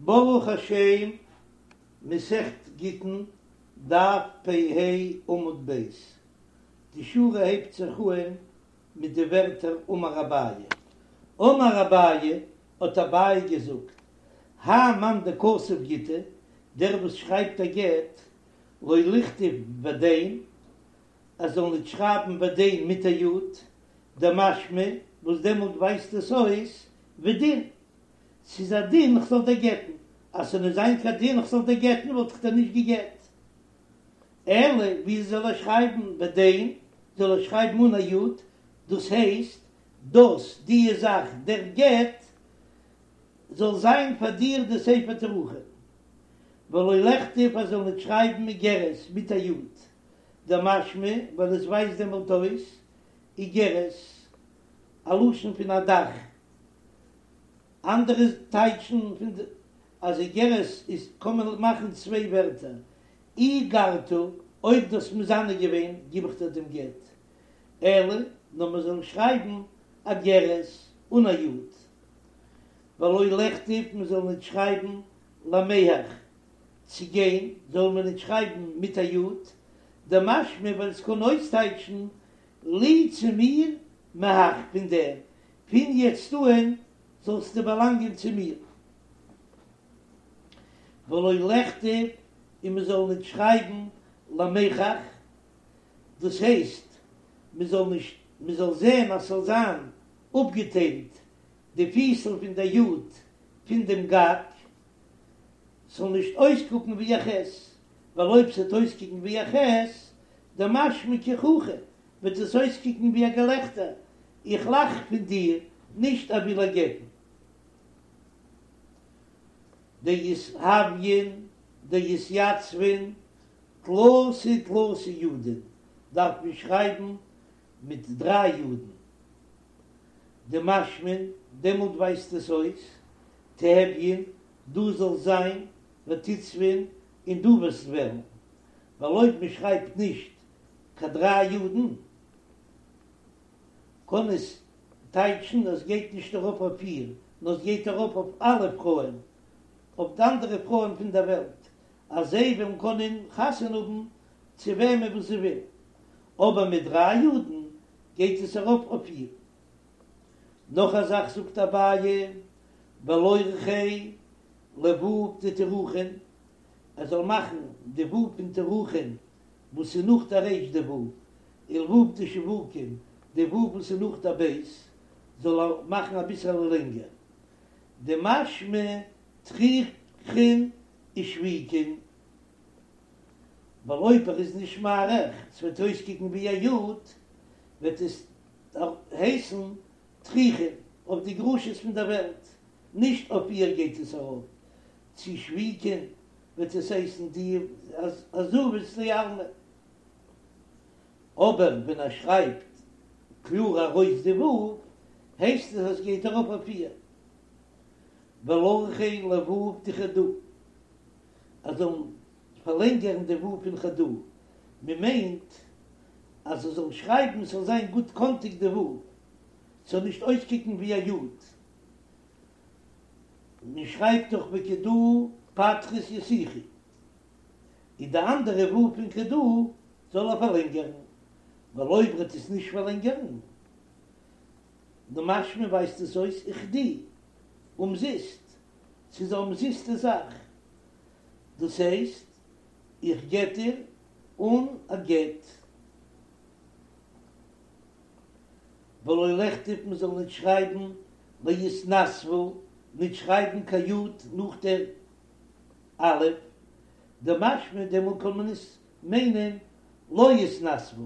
ברוך השם, מסכת גיטין, דף פ ה עמוד ב', די שורה הייבט זיך אהן מיט די ווערטער אמר אביי. אמר אביי, האט אביי געזאגט, האי מאן דכתב גיטא, דער וואס שרייבט א גט, לא לכתוב ודין, ער זאל ניט שרייבן ודין מיט א יוד, דמשמע, וואס דעמאלט ווייזט עס אויס ודין, ס'איז א דין כ'זאל דיר גט'ן, אז ס'זאל נישט זיין קיין דין כ'זאל דיר גט'ן וואלט איך דיר נישט געגט. אלא ווי זאל ער שרייבן ודין, זאל ער שרייבן אן א יוד, דאס הייסט דאס די זאך דער גט זאל זיין פאר דיר די ספר תירוכין, ולא לכתוב ער זאל נישט שרייבן איגרת מיט א יוד, דמשמע ווייל עס ווייזט דעמאלט אויס איגרת א לשון פון א דאך. אנדערע טייטשן פון די אז איגרת איז קען מען מאכן צוויי ווערטער, אי גרתא, אויב דו האסט מזנה געווען גיב איך דיר דעם גט, אלא נאר מען זאל שרייבן אגרת אן א י', ולא לכתוב מען זאל ניט שרייבן למיהך, צו גיין זאל מען ניט שרייבן מיט א י', דמשמע ווייל עס קען אויסטייטשן לי צו מיר מהך פון דעם, פון יעצט אהן זאלסטו באלאנגען צו מיר. ולא לכתוב, און מען זאל ניט שרייבן למיחך, דאס הייסט, מען זאל נישט, מען זאל זען אז ס'זאל זיין אפגעטיילט די פיסל פון דער יוד פון דעם גג, ס'זאל נישט אויסקוקן ווי א ח', ווייל אויב ס'וועט אויסקוקן ווי א ח', דמשמע כי חוכא, וועט עס אויסקוקן ווי א געלעכטער, איך לאך פון דיר, נישט ער וויל איר גט'ן. דיתהוין דיתיצבון תלתא תלתא יודין דארף מען שרייבן מיט דריי יודן, דמשמען, דעמאלט ווייזט עס אויס, תיהוין, דו זאלסט זיין, ותיצבון, און דו וועסט ווערן, ווייל אויב מען שרייבט נישט קיין דריי יודן, קען עס טייטשן אז גייט נישט ארויף אויף איר, נאר עס גייט ארויף אויף אלע פרויען, אויף די אנדערע פרויען פון דער וועלט, אז זיי וועלן קענען חתונה האבן צו וועמען וואס זיי ווילן. אבער מיט דריי יודן גייט עס ארויף אויף איר. נאך א זאך זאגט אביי, ולורכיה לו' דתירוכין, ער זאל מאכן די ו' פון תירוכין וואס איז נאך די ריש די ו', ולו' דשבוקין, די ו' וואס איז נאך די ב', זאל ער מאכן אביסעלע לענגער. דמשמע תריכין ושביקין, ווייל אויב ער איז נישט מאריך, ס'וועט אויסקוקן ווי א י', וועט עס הייסן תריכין אויף די גרושות פון דער וועלט, נישט אויף איר גייט עס ארויף, צו שביקין וועט עס הייסן די עזובות לעלמא. אבער ווען ער שרייבט קלאר ארויס די ו', הייסט עס אז עס גייט ארויף אויף איר. ולורכיה לו' דחדא, ער זאל פארלענגערן די ו' פון חדא, מען מיינט אז ער זאל שרייבן ס'זאל זיין גוט קאנטיג די ו', ס'זאל נישט אויסקוקן ווי א י'. מען שרייבט דאך וכדא פטרית יתיכי, און די אנדערע ו' פון כדא זאל ער פארלענגערן, ווייל אויב ער וועט עס נישט פארלענגערן, דמשמע ווייזט עס אויס וכדי, אומזיסט, ס'איז א אומזיסטע זאך, דאס הייסט איך גט דיר אן א גט. ולא לכתוב מען זאל ניט שרייבן ליתנסבא, ניט שרייבן קיין י' נאך דער א', דמשמע דעמאלט קען מען עס מיינען לא יתנסבא,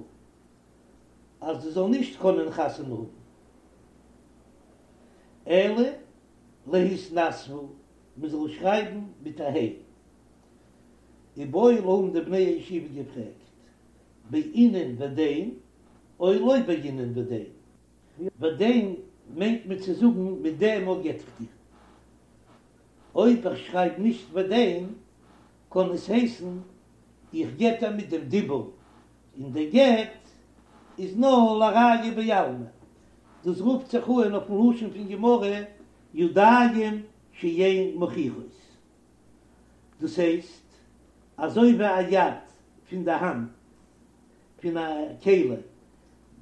אז זי זאל נישט קענען חתונה האבן, אלא להתנסבא, מען זאל שרייבן מיט א ה'. איבעיא להו האבן די בני הישיבה געפרעגט, בעינן ודין או לא בעינן ודין. ודין מיינט מען צו זאגן מיט דעם אויך גט איך דיר. אויב איך שרייב נישט ודין קען עס הייסן איך גט איר מיט דעם דיבור, און דער גט איז נאר לראיה בעלמא. דאס רופט זיך אן אויפן לשון פון גמרא ידיים שאין מוכיחות. דאס הייסט, אזוי ווי א יד פון די האנט פון א כלי,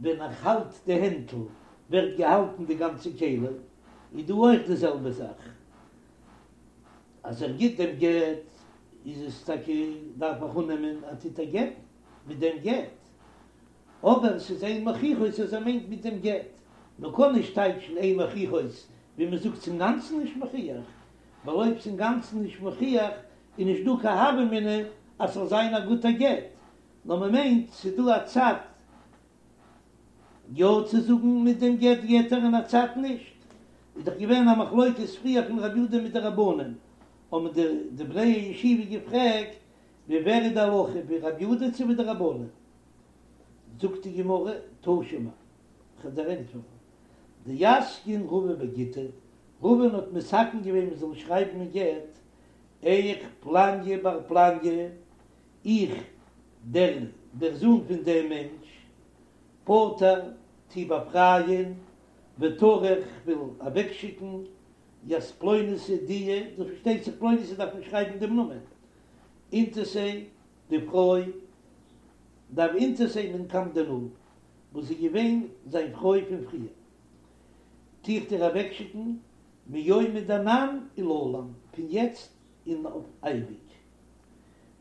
ווען איך האלט די הענטל ווערט געהאלטן די גאנצע כלי, איז דא אויך די זעלבע זאך, אז ער גיט דעם גט איז עס טאקע דארף איך אננעמען אז טוט ער גט'ן מיט דעם גט, אבער ס'איז אין מוכיחות אז ער מיינט מיט דעם גט, מען קען נישט טייטשן אין מוכיחות ווי מען זאגט ס'אינגאנצן נישט מוכיח, ווייל אויב ס'אינגאנצן נישט מוכיח איז נישט דא קיין הוה אמינא אז ס'זאל זיין א גוטער גט, נאר מען מיינט ס'איז דא א צד יא צו זאגן מיט דעם גט גט ער און א צד נישט, איז דאך געווען א מחלוקת פריער פון רבי יהודה מיט די רבנן, האבן די די בני הישיבה געפרעגט ווי ווער איז די הלכה ווי רבי יהודה צו ווי די רבנן, זאגט די גמרא תא שמע, כ'וועל דיר ענטפערן, דאתקין רבא בגיטא, רבא'ן האט מתקן געווען מען זאל שרייבן אין גט, איך פלניא בר פלניא, איך, דער דער זון פון דעם מענטש, פוטר, טו באפרייען, וטרח, כ'וויל אוועקשיקן, ית פלוניתא די, דאס פארשטייט זיך פלוניתא דארף מען שרייבן דעם נאמען, אינתתיה, די פרוי, דהוה אינתתיה מן קדם דנא, וואס איז געווען זיין פרוי פון פריער, טו איך דיר אוועקשיקן, מיומא דאנן ולעלם, פון יעצט און אויף אייביג.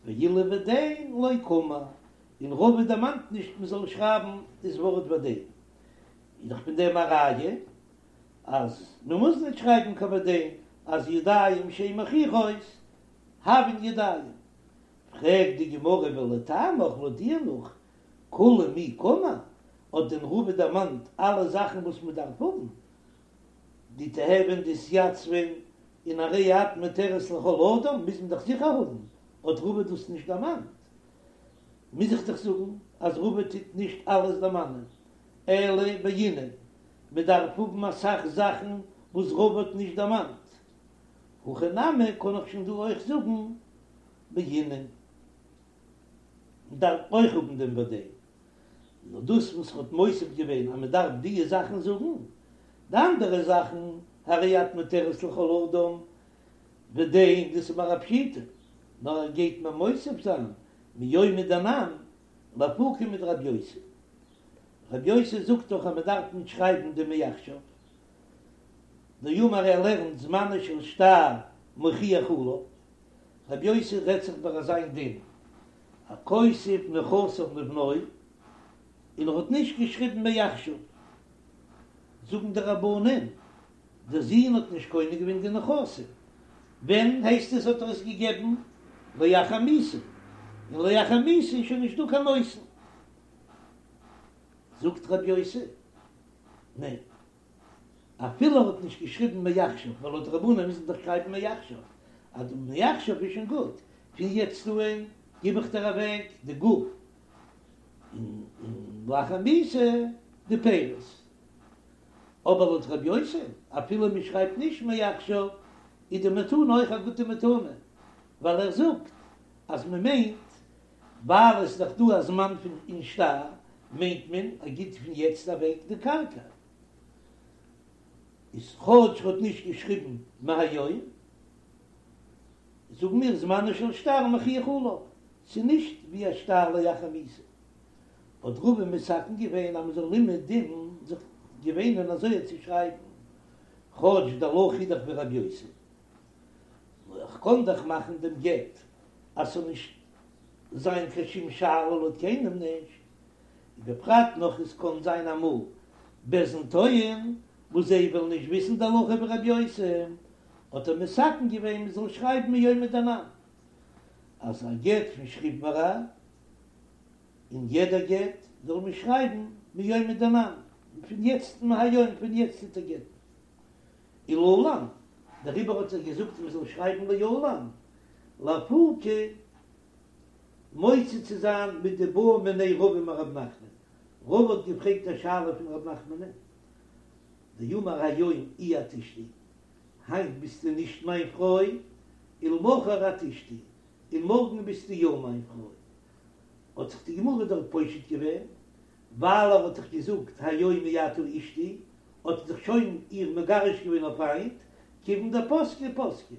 ואילו ודין לא קאמר, און רבא דערמאנט נישט מען זאל שרייבן דאס ווארט ודין, איז דאך פון דעם א ראיה אז מען מוז נישט שרייבן קיין ודין, אז ידיים שאין מוכיחות הויין ידיים. פרעגט די גמרא ולטעמיך לויט דיר נאך כולהו מי קאמר, האט דען רבא דערמאנט אלע זאכן וואס מען דארף האבן, די תיהוין דאתייצבן און הרי את מותרת לכל אדם מוז מען דאך זיכער האבן, האט רבא דאס נישט דערמאנט, מוז איך דאך זאגן אז רבא טוט נישט אלעס דערמאנען, אלא בעינן, מען דארף האבן אסאך זאכן וואס רבא האט נישט דערמאנט, הכא נמי קען איך שוין דא אויך זאגן בעינן, מען דארף אויך האבן דעם ודין. נאר דאס וואס ער האט מוסיף געווען אז מען דארף דיע זאכן זאגן, די אנדערע זאכן הרי את מותרת לכל אדם ודין דאס איז מיר א פשיטא, נאר ער גייט מיר מוסיף זיין מיומא דאנן לאפוקי מדרבי יוסי, רבי יוסי זאגט דאך אז מען דארף נישט שרייבן די מעכשיו, דאמר ער לערנט זמנו של שטר מוכיח עליו, רבי יוסי רעדט זיך ביי אזא איין דין, הכותב נכסיו לבנו, און ער האט נישט געשריבן מעכשיו, זאגן די רבנן, דער זון האט נישט קונה געווען די נכסים, ווען הייסט עס האט ער עס געגעבן? לאחר מיתה, און לאחר מיתה איז שוין נישט דא קיין נותן. זאגט רבי יוסי, ניין. אפילו ער האט נישט געשריבן מעכשיו, ווייל לויט רבנן מוז מען דאך שרייבן מעכשיו, אז די מעכשיו איז שוין גוט, פון יעצט אהן גיב איך דיר אוועק די גוף, און לאחר מיתה די פירות. אבער לויט רבי יוסי, אפילו מען שרייבט נישט מעכשיו, איז די מתנה אויך א גוטע מתנה, ווייל ער זאגט אז מען מיינט ווייל עס איז דאך דא א זמן פון אין שטר, מיינט מען ער גיט פון יעצט אוועק די קרקע. איז כאטש ר'האט נישט געשריבן מהיום, זאגן מיר זמנו של שטר מוכיח עליו, ס'איז נישט ווי א שטר לאחר מיתה. האט רבא מתקן געווען אז מ'זאל אומעדום זיך געוואינען אזוי צו שרייבן, כאטש די הלכה איז דאך ווי רבי יוסי. נאר איך קען דאך מאכן דעם גט אז ס'זאל נישט זיין קיין שום שאלה לויט קיינעם נישט, ובפרט נאך עס קען זיין אמאל בית דין טועין וואס זיי וועלן נישט וויסן די הלכה ווי רבי יוסי, האט ער מתקן געווען מען זאל שרייבן מיומא דאנן אז א גט פון שכיב מרע און יעדע גט זאל מען שרייבן מיומא דאנן פון יעצט מהיום פון יעצט טוט ער גט'ן. ולעלם, דעריבער האט ער געזאגט מען זאל שרייבן לעלם, לאפוקי מוציא צו זיין מדבעא מיניה רבא מרב נחמן, רבא האט געפרעגט א שאלה פון רב נחמנ'ן, דאמר היום אי את אשתי, היינט ביסטו נישט מיין פרוי, ולמחר את אשתי, און מארגן ביסטו יא מיין פרוי. האט זיך די גמרא דארט פושט געווען, ווייל ער האט דאך געזאגט היום אי את אשתי, האט ער דאך שוין איר מגרש געווען אויף היינט, כיוון דפסקה פסקה.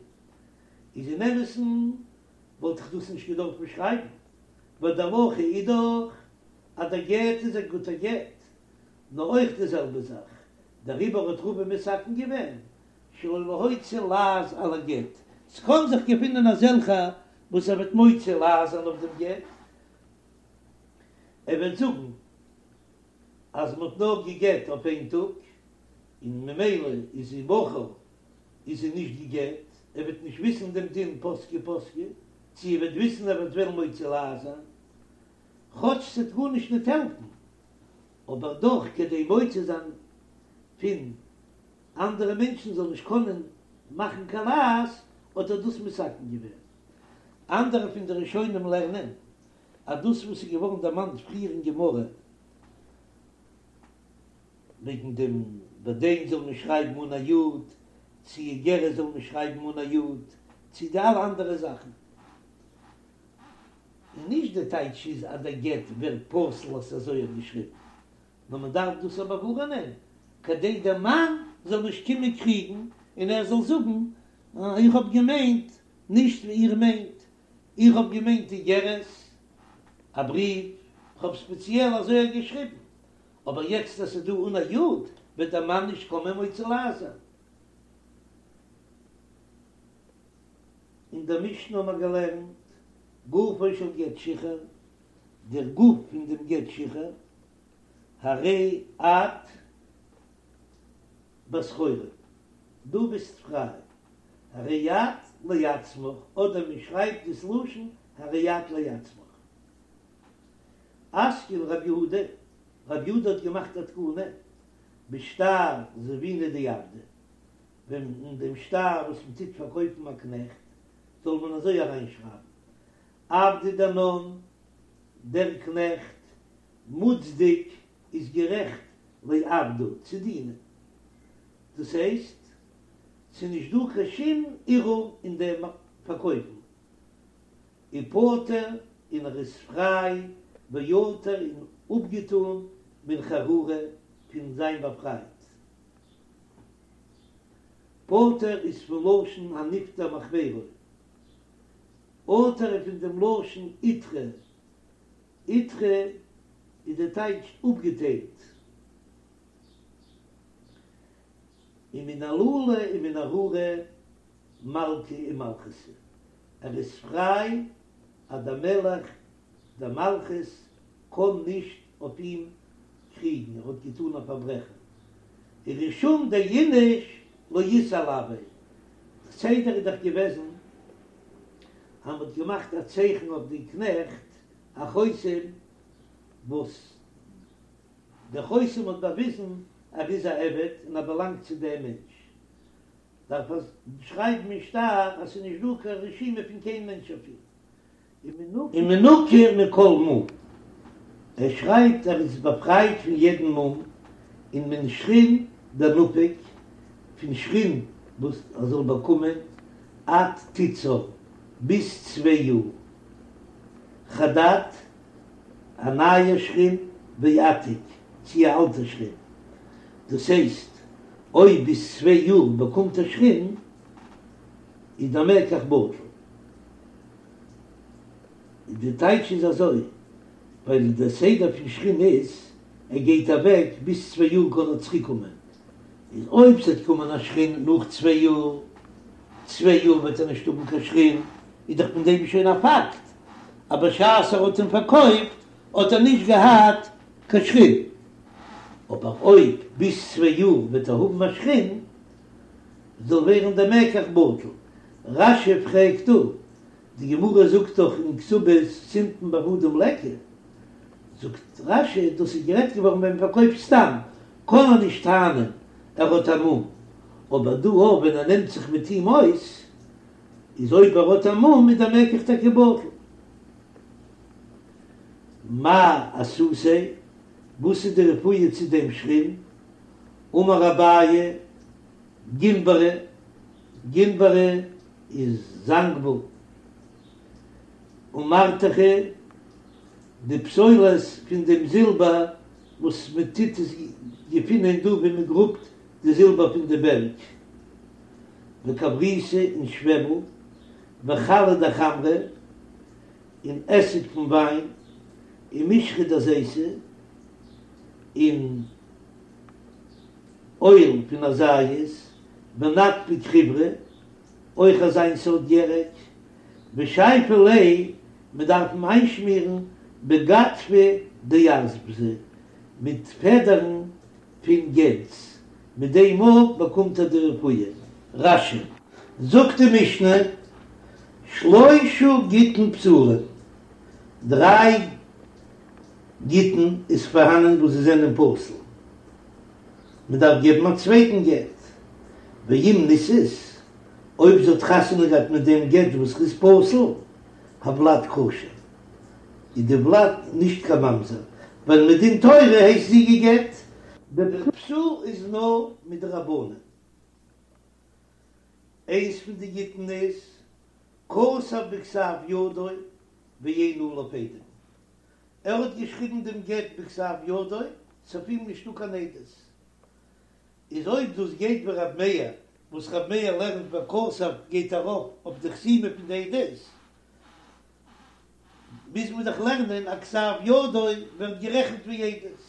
איז אין אמת'ן. וואלט איך דאס נישט געדארפט שרייבן, ווייל די הלכה איז דאך אז דער גט איז א גוטער גט, נאר אויך די זעלבע זאך, דעריבער האט רבא מתקן געווען שלא להוציא לעז על הגט, ס'קען זיך געפינען אזעלכע וואס ער וועט מוציא לעז זיין אויף דעם גט, ער וועט זאגן אז מ'האט נאר גע'גט אויף איין טאג, און ממילא איז זי מחר איז זי נישט גע'גט, ער וועט נישט וויסן דעם דין פסקה פסקה, צו ער וועט וויסן ער וועט וועלן מוציא לעז זיין, כאטש ס'וועט גארנישט ניט העלפן, אבער דאך כדי מוציא זיין פון אנדערע מענטשן זאלן נישט קענען מאכן קיין לעז, האט ער דאס מתקן געווען. אנדערע פון די ראשונים לערנען אז דאס וואס איז געווארן דערמאנט פריער אין גמרא וועגן דעם בדין זאל מען שרייבן אן א יוד, צו איגרת זאל מען שרייבן אן א יוד, צו די אלע אנדערע זאכן, און נישט די טייטש איז אז דער גט ווערט פסול אז ס'איז אזוי געשריבן, נאר מען דארף דאס אבער ווארענען כדי דער מאן זאל נישט קומען קריגן און ער זאל זאגן איך האב געמיינט נישט ווי איר מיינט, איך האב געמיינט איגרת, א בריוו, איך האב ספעציעל אזוי געשריבן, אבער יעצט אז ס'איז דא אן א יוד וועט דער מאן נישט קומען מוציא לעז זיין. אין דער משנה האבן מיר געלערנט גופו של גט שחרור, דער גוף פון דעם גט שחרור, הרי את בת חורין, דו ביסט פריי, הרי את לעצמך, אדער מען שרייבט דאס לשון הרי את לעצמך. אתקין רב יהודה, רב יהודה האט געמאכט א תקנה, בשטר זבינא דעבדא, ווען אין דעם שטר וואס מען טוט פארקויפן א קנעכט, זאל מען אזוי אריינשרייבן, עבדא דינן, דער קנעכט, מוצדק, איז גערעכט, לעבדא, צו דינען. דאס הייסט, ס'איז נישט דא קיין שום ערעור אין דעם פארקויפן. ופטור, און ער איז פריי, ועטור און אפגעטאן מן חרורא, פון זיין באפרייט. פטור איז פון לשון הנפטר מחבירו. עטור איז פון דעם לשון עיטרא, עיטרא איז די טייטש אפגעטיילט, ומן עלולא ומן ארורא מלכא ומלכותא, ער איז פריי אז דער מלך דער מלכות קען נישט אויף אים קריגן, ער האט געטאן א פארברעכן, ורישום דאיניש לא אית עילויה, סדר איז דאך געוועזן אז מ'האט געמאכט א צייכן אויף די קנעכט א חותם וואס דער חותם האט באוויזן ער איז א עבד און ער באלאנגט צו דעם מענטש, דארף ער שרייבן אין שטר אז ס'איז נישט דא קיין רשימה פון קיין מענטש אויף אים. ומנוקה מכל מום, ער שרייבט ער איז באפרייט פון יעדן מום, און מן שחין דנפיק, פון שחין וואס ער זאל באקומען, עד תיצר, ביז צוויי יאר, חדד, א נייע שחין, ועתיק, צי א אלטע שחין, דאס הייסט, אויב ביז צוויי יאר באקומט ער שחין, איז דער מקח בטל. די טייטש איז אזוי, ווייל דער סדר פון שחין איז, ער גייט אוועק, ביז צוויי יאר קען ער צוריק קומען, איז אויב ס'וועט קומען א שחין נאך צוויי יאר, צוויי יאר וועט ער נישט האבן קיין שחין, איז דאך פון דעם שוין א פאקט, אז בשעת ער האט אים פארקויפט האט ער נישט געהאט קיין שחין, אבער אויב ביז צוויי יאר וועט ער האבן א שחין, זאל ווערן דער מקח בטל. רש"י פרעגט דא, די גמרא זאגט דאך אין כתובות סימפון בעבדים ליכא, זאגט רש"י דאס איז גערעדט געווארן ווען מען פארקויפט סתם, קען ער נישט טענה'ן ער האט א מום, אבער דא אויב ווען ער נעמט זיך מיט אים אויס, איז אויב ער האט א מום איז דער מקח טאקע בטל. מאי אסותיה, וואס איז די רפואה צו דעם שחין? אמר אביי, גינברא, גינברא איז זאנגוול, ומרתכא, די פסולת פון דעם זילבער וואס מען טוט עס געפינען דא ווי מען גראבט די זילבער פון די בערג, וכבריתא און שוועבל, וחלא דחמרא. און עסיג פון וויין, ומשחא דזיתא, און אויל פון א זית, ונטפי חיורא, אויך אזיין סארט ירק, ושייפי ליה, מען דארף אים איינשמירן בגדפא דארזפתא, מיט פעדערן פון גענז, מיט דעם אויך באקומט ער די רפואה. רש"י, זאגט די משנה, שלושה גיטין פסולין, דריי גיטין איז פארהאנען וואס זיי זענען פסול, מען דארף געבן א צווייטן גט, ואם נישאת, אויב זי האט חתונה געהאט מיט דעם גט וואס איז פסול, הולד כשר, איז די ולד נישט קיין ממזר, ווייל מדין תורה הייסט זי גע'גט. דער פסול איז נאר מדרבנן. איינס פון די גיטין איז כתב בכתב ידו ואין עליו עדים. ער האט געשריבן דעם גט בכתב ידו, ס'אויף אים נישטא קיין עדות. איז אויב דאס גייט ווי רב מאיר, וואס רב מאיר לערנט וכתב גייט ארויף אויף די חתימה פון די עדות, מוז מען דאך לערנען אז כתב ידו ווערט גערעכנט ווי עדות.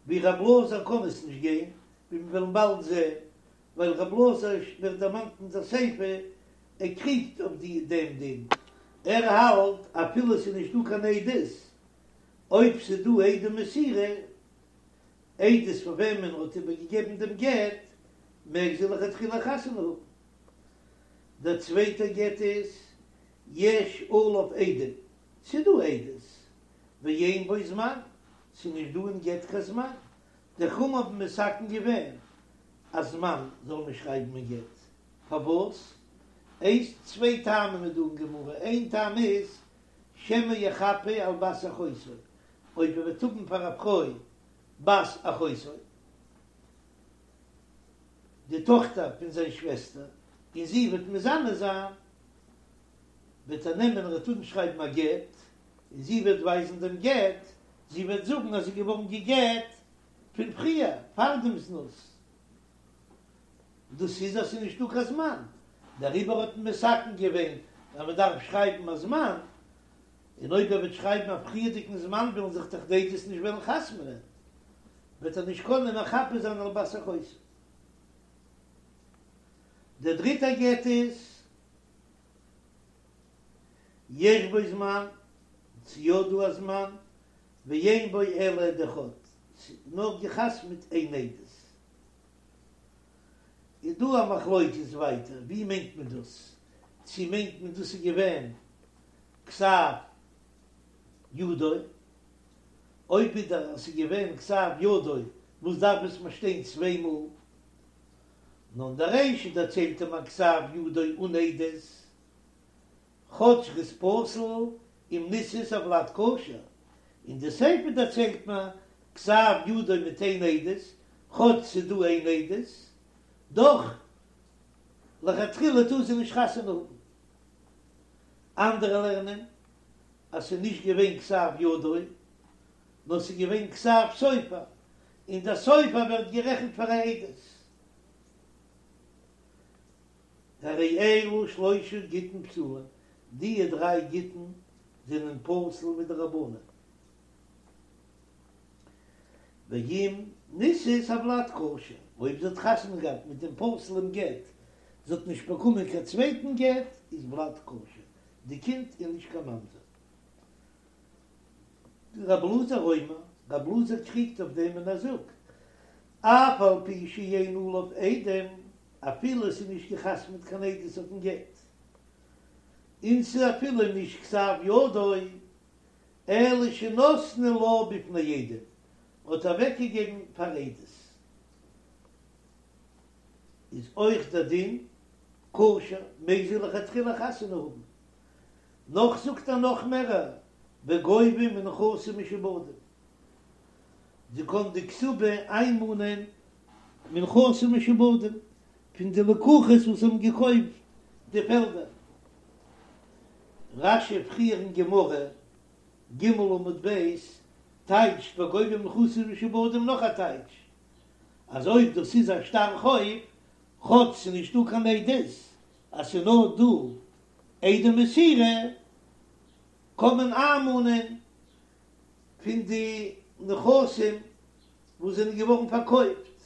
ווי רב אלעזר קען עס נישט גיין, ווי מיר וועלן באלד זען, ווייל רב אלעזר ווערט דערמאנט אין דער סיפא, ער קריגט אויף די דעם דין, ער האלט אפילו ס'איז נישט דא קיין עדות, אויב ס'איז דא עדי מסירה, עדות פאר וועמען ער האט איבערגעגעבן דעם גט, מעג זי לכתחילה חתונה האבן. דער צווייטער גט איז יש עליו עדים, ס'איז דא עדות, ואין בו זמן, ס'איז נישט דא אין גט קיין זמן, די חכמים האבן מתקן געווען א זמן זאל מען שרייבן אין גט, פארוואס? איינס, צוויי טעמים איז דא אין גמרא, איין טעם איז שמא יחפה על בת אחותו, אויב ער וועט האבן פאר א פרוי בת אחותו, די טאכטער פון זיין שוועסטער, און זי וועט מזנה זיין, וועט ער נעמען ער וועט אנשרייבן א גט, און זי וועט ווייזן דעם גט, זי וועט זאגן אז זי איז געווארן גע'גט פון פריער, פאר דעם זנות. דאס איז אז ס'איז נישטא קיין זמן, דעריבער האט מען מתקן געווען אז מען דארף שרייבן א זמן, און אויב ער וועט שרייבן א פריערדיגן זמן וועלן זיך דאך די עדות נישט וועלן חתמ'נען, וועט ער נישט קענען מחפה זיין על בת אחותו. דער דריטער גט איז יש בו זמן, ס'איז יא דא א זמן, ואין בו אלא עד אחד, ס'איז נאר געחתמ'ט איין עדות. איז דא א מחלוקת ווייטער ווי מיינט מען דאס, צו מיינט מען דאס איז געווען כתב ידו, אויב ווידער אז ס'איז געווען כתב ידו וואס דארף עס מיר שטיין צוויי מאל, נאר אין דער רישא דערציילט ער מיר כתב ידו אן עדות, כאטש ר'איז פסול אם נישאת הולד כשר, אין די סיפא דערציילט מען כתב ידו מיט איין עדות, כאטש ס'איז דא איין עדות, דאך לכתחילה טאר זי נישט חתונה האבן. אנדערע לערנען אז ס'איז נישט געווען כתב ידו, נאר ס'איז געווען כתב סופר, און דער סופר ווערט גערעכנט פאר א עדות. הרי אלו שלושה גיטין פסולים, דיע דריי גיטין זענען פסול מדרבנן. ואם נישאת הולד כשר, אויב זי האט חתונה געהאט מיט דעם פסול'ן גט, זי האט נישט באקומען קיין צווייטן גט, איז ולד כשר, די קינד איז נישט קיין ממזר. רב אלעזר אומר, רב אלעזר קריגט אויף דעם און ער זאגט, אף על פי שאין עליו עדים, אפילו עס איז נישט געחתמעט קיין עדות אויפן גט, און ס'איז אפילו נישט כתב ידו, אלא שנתנו לה בפני עדים, האט אוועקגעגעבן פאר עדות, איז אויך דער דין כשר, מעג זי לכתחילה חתונה האבן. נאך זאגט ער נאך מערער, וגובה מנכסים משועבדים, זי קען די כתובה איינמאנען מנכסים משועבדים, פון די לקוחות וואס האבן געקויפט די פעלדער. רש"י פריער אין גמרא, ג' עמוד ב', טייטשט וגובה מנכסים משועבדים נאך א טייטש, אז אויב דאס איז א שטר חוב, כאטש ס'איז נישטא קיין עדות אז ס'איז נאר דא עדי מסירה. קען מען איינמאנען פון די נכסים וואס זענען געווארן פארקויפט,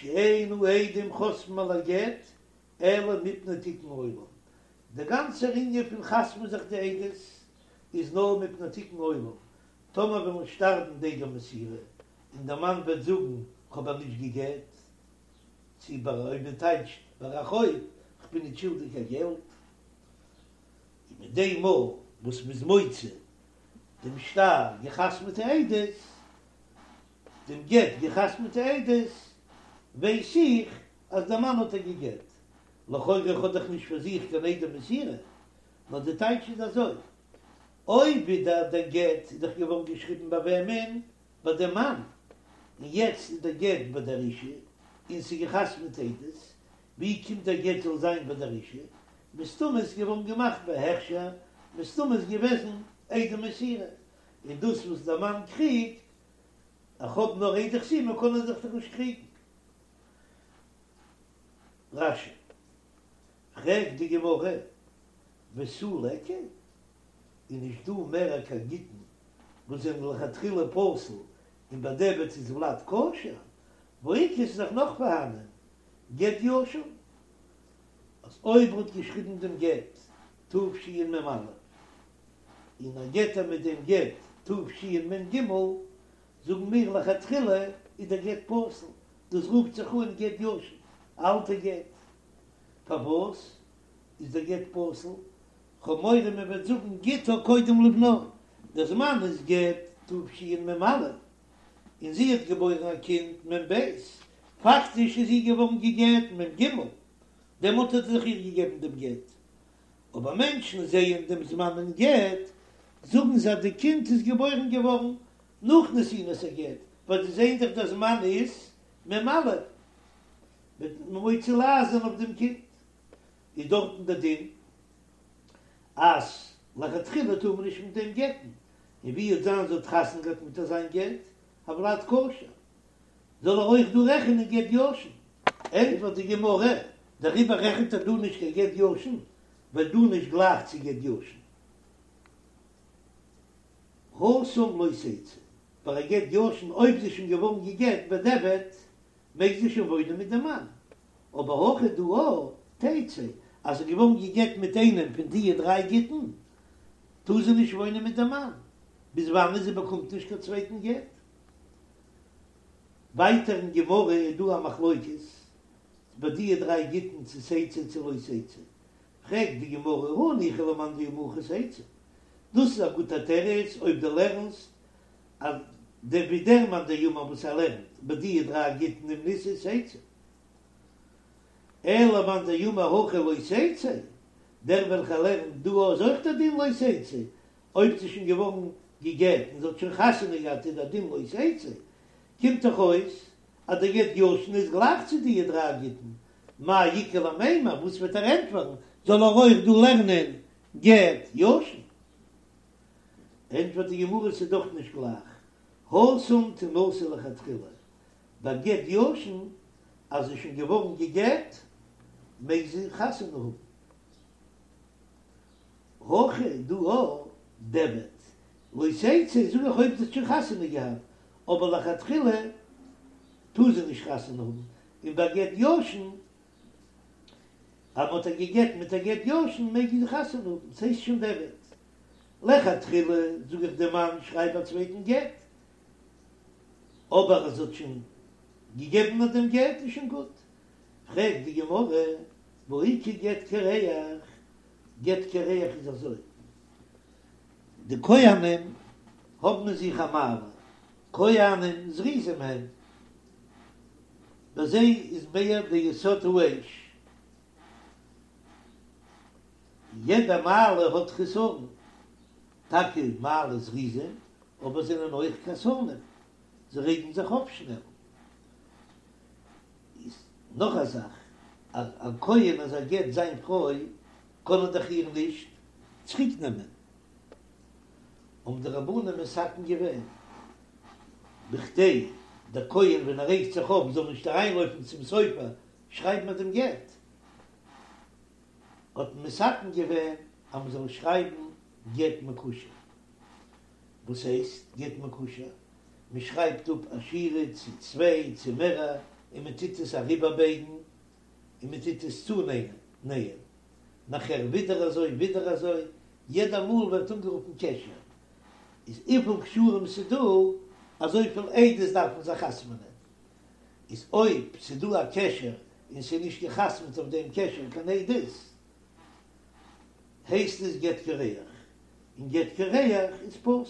שאין העדים חותמים על הגט אלא מפני תיקון עולם, דער גאנצער ענין פון חתמ'ן זיך די עדות איז נאר מפני תיקון עולם, טאמער וועלן שטארבן די עדי מסירה און דער מאן וועט זאגן כ'האב איר נישט גע'גט, צו ביי אויב מען טייטשט ביי א חוב כ'בין נישט שולדיג קיין געלט, און מיט דעם מאל וואס מ'איז מוציא דעם שטר געחתמ'טע עדות, דעם גט געחתמ'טע עדות, ווייס איך אז דער מאן האט איר גע'גט. לכאורה איך האב דאך נישט פאר זיך קיין עדי מסירה, נאר די טייטש איז אזוי, אויב ווידער דער גט איז דאך געווארן געשריבן ביי וועמען? ביי דעם מאן, און יעצט איז דער גט ביי דער אישה, און ס'איז געחתמ'ט עדות, ווי קומט דער גט זאל זיין ביי דער אישה? מסתמא איז געווארן געמאכט בהכשר, מסתמא איז געוועזן עדי מסירה, און דאס וואס דער מאן קריגט, איך האב נאר עדי חתימה קען ער זיך דאך נישט קריגן. רש"י, פרעגט די גמרא, ותו ליכא? איז נישט דא מער קיין גיטין וואס זענען לכתחילה פסול און בדיעבד איז ולד כשר, והאיכא ס'איז דאך נאך פארהאנען גט ישן אז אויב ער האט געשריבן דעם גט תשמ"א און ער גט איר מיט דעם גט תשמ"ג זאגן מיר לכתחילה איז דער גט פסול, דאס רופט זיך אן גט ישן, א אלטע גט, פארוואס איז דער גט פסול? כ'האב מורא מען וועט זאגן גיטה קודם לבנה, דער זמן איז גט תשמ"א, און זי האט געבוירן א קינד מ"ב, פאקטיש איז זי געווארן גע'גט מ"ג, דעמאלט האט ער דאך איר געגעבן דעם גט, אבער מענטשן זעען דעם זמן אין גט, זאגן זיי אז די קינד איז געבוירן געווארן נאך נתינת הגט, ווייל זיי זעען דאך דער זמן איז מ"א, וועט מען מוציא לעז זיין אויף דעם קינד. איז דארטן דער דין אז לכתחילה טאר מען נישט מיט דעם גט'ן, און ווי וועט זיין זי האט חתונה געהאט מיט אזיין גט, הולד כשר, זאל ער אויך דא רעכענען גט ישן. ענטפערט די גמרא, דעריבער רעכנט ער דא נישט קיין גט ישן, ווייל דא נישט גלייך צו גט ישן. התם לא תצא, ביי א גט ישן אויב זי איז שוין געווארן גע'גט בדיעבד, מעג זי שוין וואוינען מיט דעם מאן, אבער הכא דא תצא, אז זי איז געווארן גע'גט מיט איינעם פון דיע דריי גיטין, טאר זי נישט וואוינען מיט דעם מאן, ביז וואנען זי באקומט נישט קיין צווייטן גט. ווייטער אין גמרא איז דא א מחלוקת ביי דיע דריי גיטין צו תצא צו לא תצא, פרעגט די גמרא הניחא למאן דאמר הכא תצא, דאס איז א גוטע תירוץ אויב דו לערנסט אז דער ווי דער מאן דאמר וואס ער לערנט ביי דיע דריי גיטין אם נישאת תצא, אלא למאן דאמר הכא לא תצא, דער וועלכער לערנט דא איז אויך דער דין לא תצא, אויב זי איז שוין געווארן גע'גט און זי האט שוין חתונה געהאט איז דער דין לא תצא, קומט דאך אויס אז דער גט ישן איז גלייך צו דיע דריי גיטין, מאי איכא למימר, וואס וועט ער ענטפערן, זאל ער אויך דא לערנען גט ישן? ענטפערט די גמרא ס'איז דאך נישט גלייך, התם תנשא לכתחילה, ביי גט ישן אז זי איז שוין געווארן גע'גט מעג זי חתונה האבן, הכא דא דיעבד לא תצא זאג איך אויב זי האט שוין חתונה געהאט, אבער לכתחילה טאר זי נישט חתונה האבן, און ביי גט ישן אז מ'האט איר גע'גט מיט א גט ישן מעג זי חתונה האבן, ס'הייסט שוין דיעבד. לכתחילה זאג איך דעם מאן שרייב א צווייטן גט, אבער אז זי האט שוין געגעבן אט דעם גט איז שוין גוט. פרעגט די גמרא, והאיכא גט קרח, גט קרח איז אזוי, די כהנים האבן אין זיך א מעלה, כהנים זריזים הם, ביי זיי איז מער די יסוד האש, יעדע מעלה האט חסרון, טאקע מעלה זריזים, אבער זענען אויך כעסנים, זיי רעגן זיך אויף שנעל. איז נאך א זאך, אז א כהן אז ער גט זיין פרוי קען ער דאך איר נישט צוריק נעמען, האבן די רבנים מתקן געווען, בכדי דער כהן ווען ער רעגט זיך אויף זאל נישט אריינלויפן צום סופר שרייבן אט דעם גט, האט מען מתקן געווען אז מען זאל שרייבן. גט מקושר. וואס הייסט גט מקושר? מען שרייבט אפ א שורה צו צוויי צו מערער און מען טוט עס אריבערבייגן און מען טוט עס צונייען, נאכער ווידער אזוי ווידער אזוי, יעדע מאל ווערט אנגערופן קשר, איז וויפיל קשרים ס'דא אזויפיל עדות דארף מען זיך חתמ'נען, איז אויב ס'דא א קשר און ס'איז נישט געחתמ'ט אויף דעם קשר קיין עדות, הייסט עס גט קרח, און גט קרח איז פסול.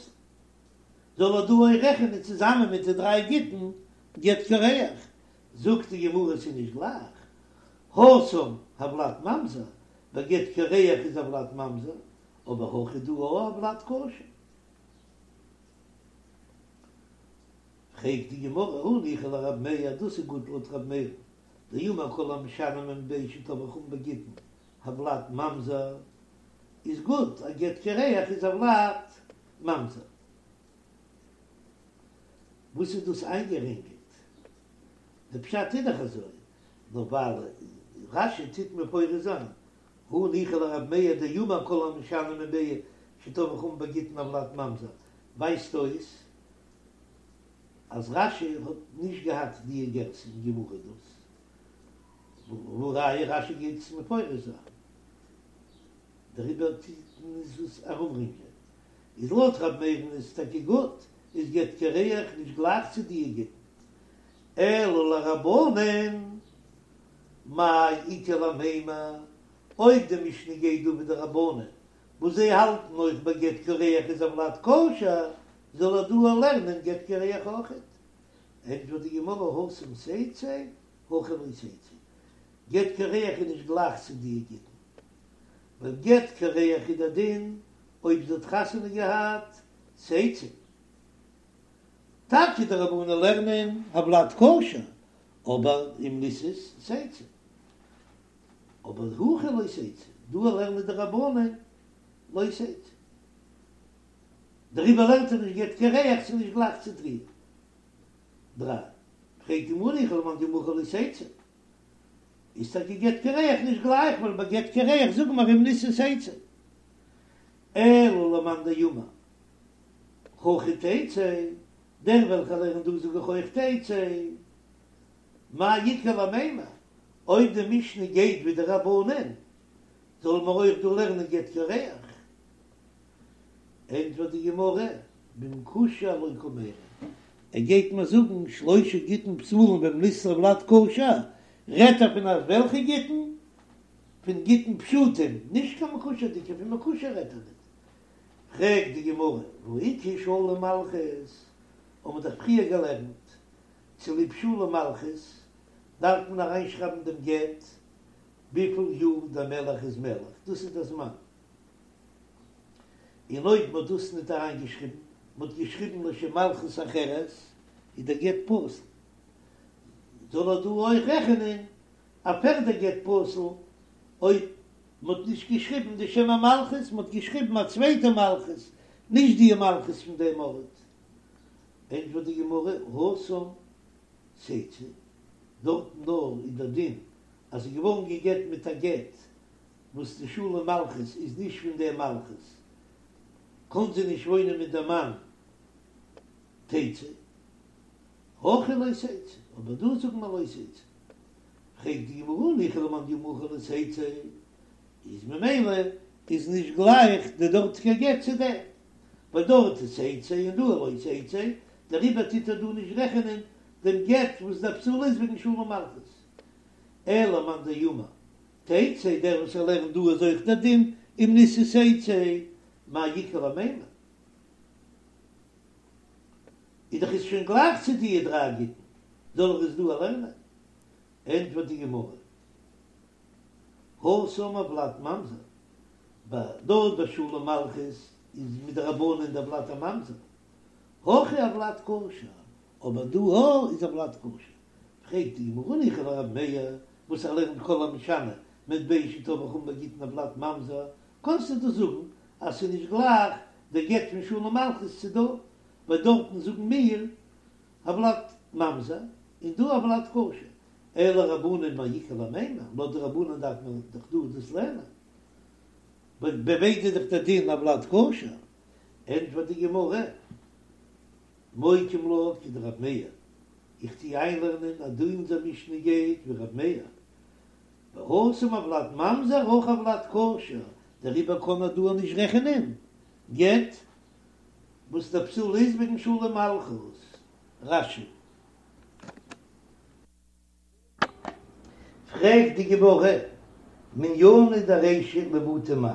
זאל ער דא אויך רעכענען צוזאמען מיט די דריי גיטין גט קרח? זאגט די גמרא ס'איז נישט גלייך, התם הולד ממזר, ביי גט קרח איז הולד ממזר, אבער הכא דא הולד כשר. פרעגט די גמרא הניחא לרב מאיר, דאס איז גוט לויט רב מאיר, דאמר כל המשנה ממטבע שטבעו חכמים בגיטין הולד ממזר, איז גוט, א גט קרח איז הולד ממזר. וואס איז דאס איינגערינגלט? די פשט איז דאך אזוי, נאר ווייל רש"י טוט מפרש זיין, הניחא לרב מאיר דאמר כל המשנה ממטבע שטבעו חכמים בגיטין הולד ממזר, ווייזט אויס אז רש"י האט נישט געהאט די גירסא אין גמרא דאס, והא ראיה רש"י גייט עס מפרש זיין, דעריבער טוט מען עס ארומרינגלען. איז לויט רב מאיר'ן איז טאקע גוט, איז גט קרח נישט גלייך צו די גיטין. אלא לרבנן, מאי איכא למימר, אויב די משנה גייט דא ווי די רבנן, וואס זיי האלטן אויך ביי גט קרח איז הולד כשר, זאל ער דא לערנען גט קרח אויכעט. ענטפערט די גמרא התם תצא, הכא לא תצא. גט קרח איז נישט גלייך צו די גיטין. ווייל גט קרח איז דער דין אויב זי האט חתונה געהאט תצא. טאקע די רבנן לערנען הולד כשר, אבער אם נישאת תצא. אבער הכא לא תצא, דא לערנען די רבנן לא תצא. דעריבער לערנט ער נישט גט קרח, ס'איז נישט גלייך צו די דריי. פרעגט די גמרא הניחא למאן דאמר הכא לא תצא. איז טאקע גט קרח נישט גלייך, ווייל ביי גט קרח זאגן מיר אם נישאת תצא. אלא למאן דאמר הכא תצא, דער וועלכער לערנט דא זאג איך אויך תצא. מאי איכא למימר, אויב די משנה גייט ווי די רבנן, זאלן מיר אויך דא לערנען גט קרח? ענטפערט די גמרא, במקושר לא קמיירי, ער גייט מיר זאגן שלושה גיטין פסולים ואם נישאת הולד כשר, רעדט ער פון אזוועלכע גיטין? פון גיטין פשוטים, נישט קיין מקושר'דיגע, פון מקושר רעדט ער ניט. פרעגט די גמרא, והא איכא שלום מלכות, האבן מיר דאך פריער געלערנט, צוליב שלום מלכות דארף מען אריינשרייבן דעם גט וויפיל יאר דער מלך איז מלך, דאס איז דער זמן. און אויב מ'האט דאס ניט אריינגעשריבן, מ'האט געשריבן לשם מלכות אחרת, איז דער גט פסול. זאל ער דא אויך רעכענען א פערדע גט פסול, אויב מ'האט נישט געשריבן די שם המלכות, מ'האט געשריבן א צווייטע מלכות, נישט די מלכות פון דעם ארט. ענטפערט די גמרא, התם תצא, דארטן נאר איז דער דין אז ס'איז געווארן גע'גט מיט א גט וואס די שלום מלכות איז נישט פון דער מלכות, קאן זי נישט וואוינען מיט דעם מאן, תצא, הכא לא תצא, אבער דא זאגט מען לא תצא. פרעגט די גמרא הניחא למאן דאמר הכא לא תצא, איז ממילא איז נישט גלייך די דארטיגע גט צו דעם, ווייל דארט איז תצא און דא לא תצא, דעריבער טוט ער דא נישט רעכענען דעם גט וואס דער פסול איז וועגן שלום מלכות. אלא למאן דאמר תצא, דער וואס ער לערנט דא איז אויך דער דין אם נישאת תצא, מאי איכא למימר? איז דאך עס שוין גלייך צו די דריי גיטין, זאל ער עס דא לערנען? ענטפערט די גמרא, התם הולד ממזר, ביי דארט ביי שלום מלכות איז מדרבנן דער ולד א ממזר, הכא הולד כשר, אבער דא הא איז הולד כשר, פרעגט די גמרא הניחא לרב מאיר וואס ער לערנט כל המשנה ממטבע שטבעו חכמים בגיטין הולד ממזר, קענסטו דאס זאגן אז ס'איז נישט גלייך דער גט פון שלום מלכות צו דא, ווייל דארטן זאגן מיר הולד ממזר און דא הולד כשר, אלא רבנן מאי איכא למימר, לויט די רבנן דארף מען דאך דא דאס לערנען. ביי ביידע איז דאך דער דין הולד כשר, ענטפערט די גמרא, מוקים לה כדרב מאיר, איך טוה איינלערנען אז דא אונזער משנה גייט ווי רב מאיר, והתם הולד ממזר הכא הולד כשר, דעריבער קען ער דא נישט רעכענען גט וואס דער פסול איז וועגן שלום מלכות. רש"י. פרעגט די גמרא, מנינא דרישא למעוטי מאי?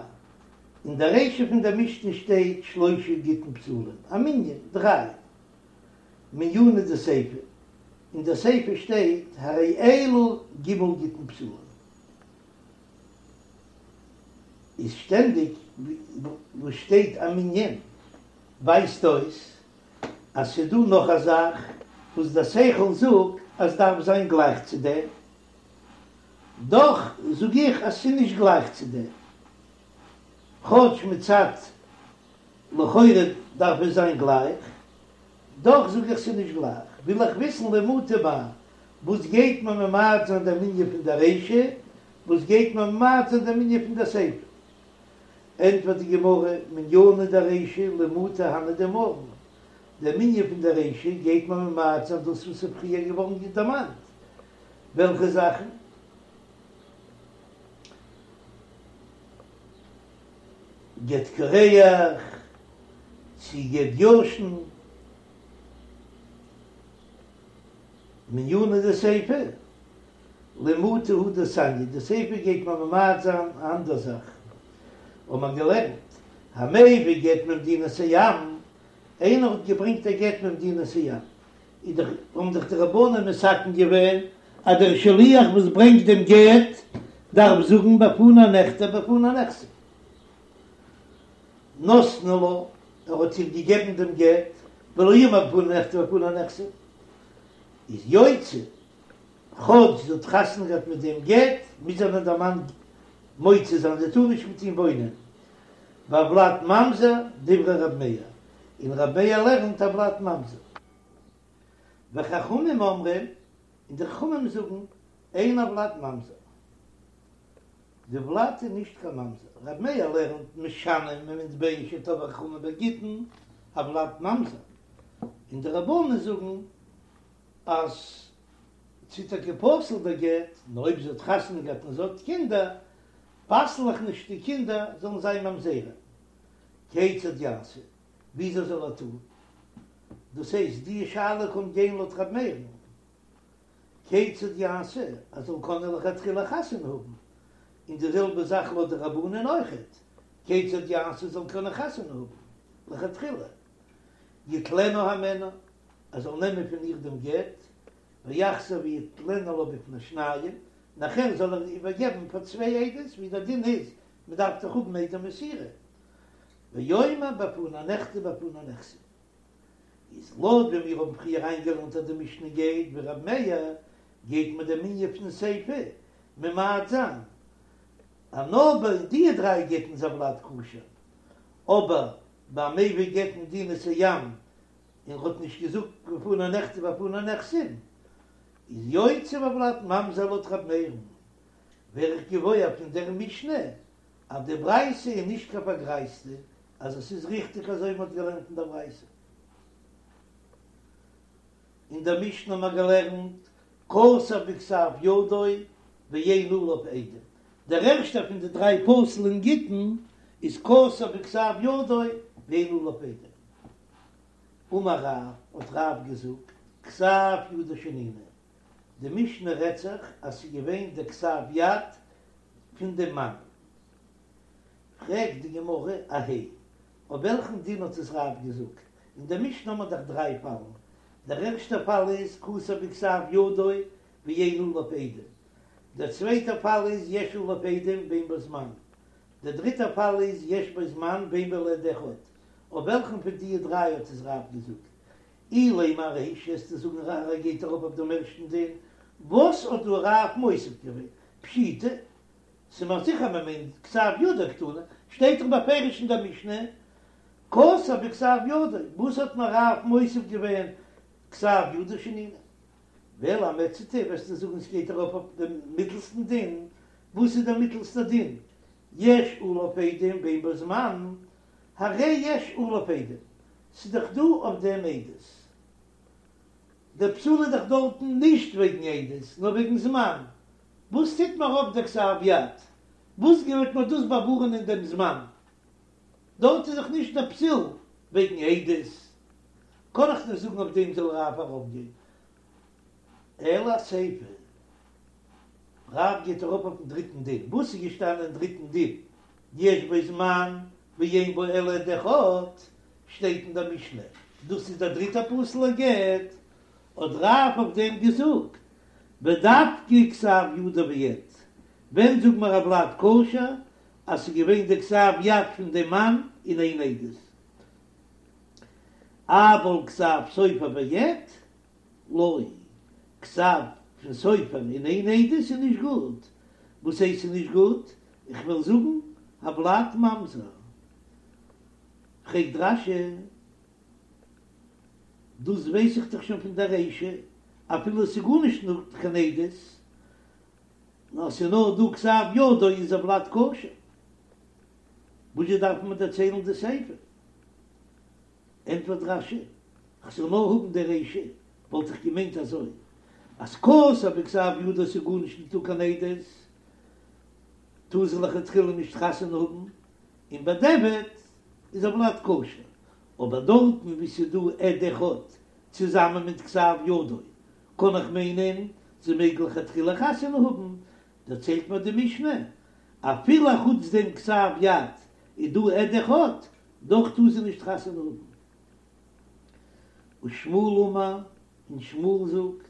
אין די רישא פון דער משנה שטייט שלושה גיטין פסולים, א מנין, דריי. מנינא דסיפא, אין די סיפא שטייט הרי אלו ג' גיטין פסולים. איז שטענדיג וואו שטייט א מנין ווייזט אויס אז ס'דא נאך א זאך וואס דער שכל זאגט אז דארף זיין גלייך צו דעם, דאך זאג איך אז ס'איז נישט גלייך צו דעם, כאטש מצד לכאורה דארף עס זיין גלייך, דאך זאג איך ס'איז נישט גלייך, וויל איך וויסן למעוטי מאי, וואס גייט מען ממעט זיין דעם מנין פון דער רישא, וואס גייט מען ממעט זיין דעם מנין פון דער סיפא? ענטפערט די גמרא, מנינא דרישא למעוטי הני דאמרן, דער מנין פון דער רישא גייט מען ממעט זיין דאס וואס איז פריער געווארן דערמאנט, וועלכע זאכן? גט קרח, צי גט ישן, מנינא דסיפא, למעוטי הא דתניא, די סיפא גייט מען ממעט זיין א אנדער זאך, האט מען געלערנט, המביא גט ממדינת הים, איינער האט געברענגט א גט ממדינת הים, איז דאך האבן דאך די רבנן מתקן געווען אז דער שליח וואס ברענגט דעם גט דארף זאגן בפני נכתב בפני נחתם. נתנו לה, ער האט איר געגעבן דעם גט, ולא אמר בפני נכתב בפני נחתם, איז יוציא, כאטש זי האט חתונה געהאט מיט דעם גט, מוז איר דער מאן מוציא זיין, זי טאר נישט מיט אים וואוינען. והולד ממזר, דברי רב מאיר, און רב מאיר לערנט הולד ממזר. וחכמים אומרים, און די חכמים זאגן, אין הולד ממזר. די ולד איז נישט קיין ממזר. רב מאיר לערנט משנה ממטבע שטבעו חכמים בגיטין, הולד ממזר. און די רבנן זאגן אז ס'איז טאקע פסול דער גט, נאר אויב זי האט חתונה געהאט און זי האט קינדער, פסל איך נישט די קינדער זאלן זיין ממזרים. כיצד יעשה? וויאזוי זאל ער טון? דאס הייסט, די שאלה קומט גיין לויט רב מאיר'ן. כיצד יעשה, ער זאל קענען לכתחילה חתונה האבן, און די זעלבע זאך לויט די רבנן אויכעט, כיצד יעשה זאל קענען חתונה האבן לכתחילה, יטלנה הימנה, ער זאל נעמען פון איר דעם גט, ויחזור ויתננה לה בפני שניים, נאכער זאל ער איבערגעבן פאר צוויי עדות, ווי דער דין איז, מען דארף דאך האבן עדי מסירה, ויאמר בפני נכתב בפני נחתם. איז לויט ווי מיר האבן פריער איינגעלערנט אז די משנה גייט ווי רב מאיר, גייט מען דעם מנין פון סיפא ממעט זיין אז נאר ביי די דריי גיטין איז הולד כשר, אבער ביי מביא גט ממדינת הים און ר'האט נישט געזאגט בפני נכתב בפני נחתם איז יוציא והולד ממזר לויט רב מאיר'ן, ווער איך געוואויר פון דער משנה אז די ברייתא איז נישט קיין פארגרייזטע אז עס איז ריכטיג אזוי ווי מען האט געלערנט אין דער ברייתא. אין דער משנה האט מען געלערנט כתב בכתב ידו ואין עליו עדים, דער ערשטער פון די דריי פסול'ע גיטין איז כתב בכתב ידו ואין עליו עדים. אמר רב, האט רב געזאגט, כתב ידו שנינו, די משנה רעדט זיך אז ס'איז געווען דער כתב יד פון דעם מאן. פרעגט די גמרא, אהייא, אויף וועלכן דין האט עס רב געזאגט? אין דער משנה האט מען דאך דריי פאלן, דער ערשטער פאל איז כתב בכתב ידו ואין עליו עדים, דער צווייטער פאל איז יש עליו עדים ואין בו זמן, דער דריטער פאל איז יש בו זמן ואין בו אלא עד אחד, אויף וועלכן פון די דריי האט עס רב געזאגט? אילימא ארישא וועסטו זאגן ער גייט ארויף אויף דעם ערשטן דין, וואס האט דא רב מוסיף געווען? פשיטא, ס'איז מיר זיכער מען מיינט כתב ידו קתני, שטייט דאך בפירוש אין דער משנה כתב בכתב ידו, וואס האט מיר רב מוסיף געווען כתב ידו שנינו? ואלא אמעצתא וועסטו זאגן ס'גייט ארויף אויף דעם מיטלסטן דין, וואס איז דער מיטלסטער דין? יש עליו עדים ואין בו זמן, הרי יש עליו עדים, ס'איז דאך דא אויף דעם עדות. דער פסול איז דאך דארטן נישט וועגן עדות, נאר וועגן זמן. וואס טוט מיר אויף דער כתב יד? וואס גייט מיר דאס באווארענען דעם זמן? דארט איז דאך נישט דער פסול וועגן עדות, קען איך נישט זאגן אויף דעם זאל רב ארויפגיין. אלא אסיפא, רב גייט ארויף אויפן דריטן דין. וואס איז געשטאנען אין דריטן דין? יש בו זמן ואין בו אלא עד אחד, שטייט אין דער משנה, דאס איז דער דריטער פסול'ער גט, האט רב אויף דעם געזאגט, ודווקא כתב ידו ועד, ווען זאגט מען הולד כשר אז ס'איז געווען די כתב יד פון דעם מאן און איין עדות, אבל כתב סופר ועד לא, כתב פון סופר און איין עדות איז נישט גוט, וואס הייסט ס'איז נישט גוט? איך וועל זאגן הולד ממזר. פרעגט רש"י, דאס ווייס איך דאך שוין פון דער רישא, אפילו עס איז גארנישט נישט קיין עדות, נאר עס איז נאר דא כתב ידו איז הולד כשר, וואזשע דארף מען דערציילן די סיפא? ענטפערט רש"י, כ'זאל נאר האבן די רישא, וואלט איך געמיינט אזוי, אז כתב בכתב ידו ס'איז גארנישט ניטא קיין עדות, טאר זי לכתחילה נישט חתונה האבן, און בדיעבד איז הולד כשר, אבער דארטן וואו ס'איז דא עד אחד צוזאמען מיט כתב ידו, קען איך מיינען זי מעג לכתחילה חתונה האבן, דערציילט מיר די משנה, אפילו אחוץ דעם כתב יד איז דא עד אחד, דאך טאר זי נישט חתונה האבן. ושמואל אמר, און שמואל זאגט,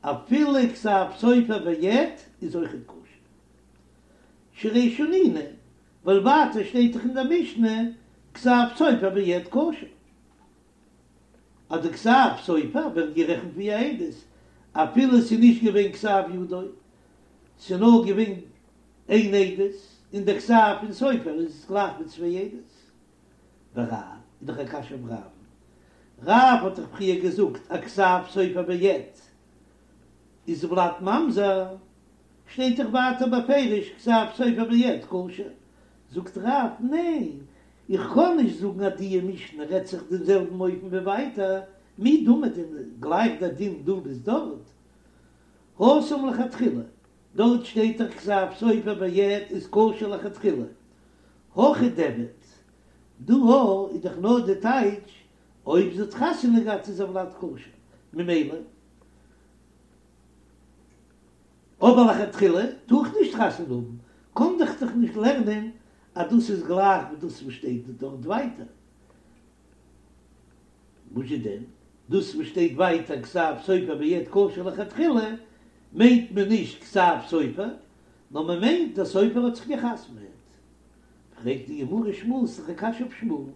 אפילו כתב סופר ועד איז אויכעט כשר. שהרי שנינו, ווייל ווייטער שטייט דאך אין דער משנה כתב סופר ועד כשר. אז די כתב סופר ווערט גערעכנט ווי א עדות, אפילו עס איז נישט געווען כתב ידו, ס'איז נאר געווען איין עדות, און דער כתב פון סופר איז גלייך ווי צוויי עדות. ורב, איז דאך א קשיא אויף רב'ן. רב האט דאך פריער געזאגט אז כתב סופר ועד איז הולד ממזר, שטייט דאך ווייטער בפירוש כתב סופר ועד כשר. זאגט רב, ניין, איך קען נישט זאגן אז דיע משנה רעדט זיך דעם זעלבן אופן ווי ווייטער, מי דמי דען גלייך דער דין דא ביז דארט? התם לכתחילה, דארט שטייט דאך כתב סופר ועד איז כשר לכתחילה, הכא דיעבד, דא איז דאך נאר די טייטש אויב זי האט חתונה געהאט איז הולד כשר, ממילא אבער לכתחילה טאר איך נישט חתונה האבן, קען איך דאך נישט לערנען אז דאס איז גלייך ווי דאס וואס שטייט דארט ווייטער. וואזשע דען? דאס וואס שטייט ווייטער כתב סופר ועד כשר לכתחילה מיינט מען נישט כתב סופר, נאר מען מיינט דער סופר האט זיך גע'חתמ'עט. פרעגט די גמרא שמואל, ס'איז דאך א קשיא אויף שמואל,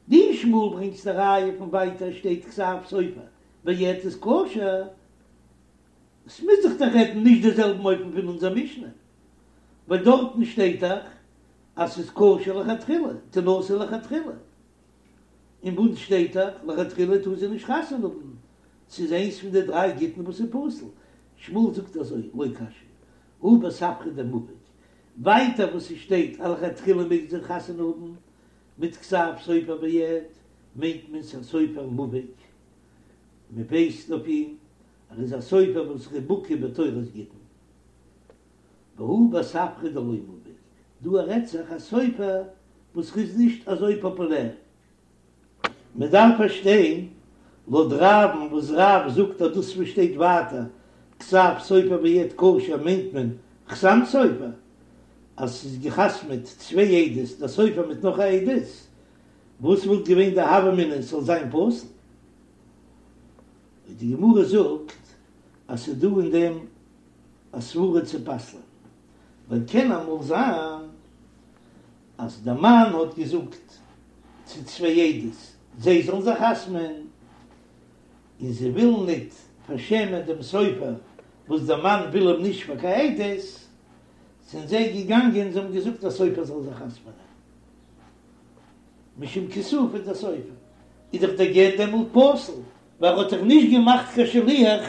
דו שמואל ברענגסט א ראיה פון ווייטער שטייט כתב סופר ועד איז כשר, עס מוז זיך דאך רעדן נישט די זעלבן אופן פון אונזער משנה, ווייל דארטן שטייט דאך אז ס'איז כשר לכתחילה, תנשא לכתחילה, און ביי אונז שטייט דאך לכתחילה טאר זי נישט חתונה האבן, ס'איז איינס פון די דריי גיטין וואס איז פסול, שמואל זאגט אזוי, לא קשיא, הא בספרא דמובהק, ווייטער וואס ס'שטייט אז לכתחילה מעג זי חתונה האבן מיט כתב סופר ועד, מיינט מען ס'א סופר מובהק, מ'ווייסט אויף אים ער איז א סופר וואס איז בקי בתורת גיטין. והא בספרא דלא מובהק, דא רעדט זיך א סופר וואס איז נישט אזוי פאפולער. מען דארף פארשטיין, לויט רב'ן וואס רב זאגט אז דאס וואס שטייט ווייטער כתב סופר ועד כשר מיינט מען חתם סופר, אז ס'איז געחתמעט צוויי עדות דער סופר מיט נאך א עדות, וואס וואלט געווען די הוה אמינא ס'זאל זיין פסול? די גמרא זאגט אז ס'איז דא אין דעם א סברה צו פסל'ען, ווייל קען אמאל זיין אז דער מאן האט געזאגט צו צוויי עדות זיי זאלן זיך חתמ'ען, און זיי ווילן ניט פארשעמען דעם סופר וואס דער מאן וויל אים נישט פאר קיין עדות, זענען זיי געגאנגען זיי האבן געזאגט דער סופר זאל זיך חתמ'ענען. משום כיסופא דסופר איז דאך דער גט דעמאלט פסול, ווייל ער האט דאך נישט געמאכט קיין שליח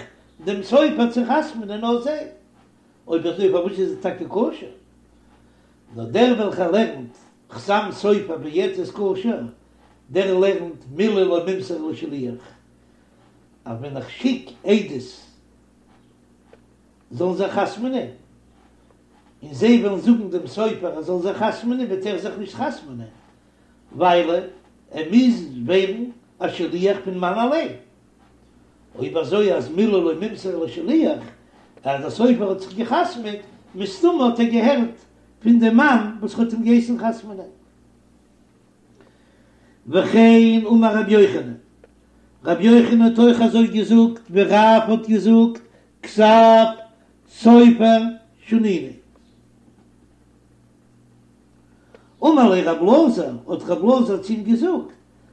דעם סופר צו חתמ'נען נאר זיי. אויב אזוי פארוואס איז עס טאקע כשר? נאר דער וועלכער לערנט חתם סופר ויעצת כשר, דער לערנט מילי לא מימסרן לשליח, אז ווען איך שיק עדות זאלן זיך חתמ'נען, און זיי וועלן זאגן דעם סופר ער זאל זיך חתמ'נען, וועט ער זיך נישט חתמ'נען, ווייל ער מוז ווערן א שליח פון מאן אליין. אויב אזוי אז מילי לא מימסרן לשליח, אז דער סופר האט זיך געחתמ'עט, מסתמא האט ער געהערט פון דעם מאן וואס האט אים געהייסן חתמ'נען. וכן אמר רבי יוחנן, רבי יוחנן האט אויך אזוי געזאגט ווי רב האט געזאגט, כתב סופר שנינו. אמר ליה רב אלעזר, האט רב אלעזר צו אים געזאגט,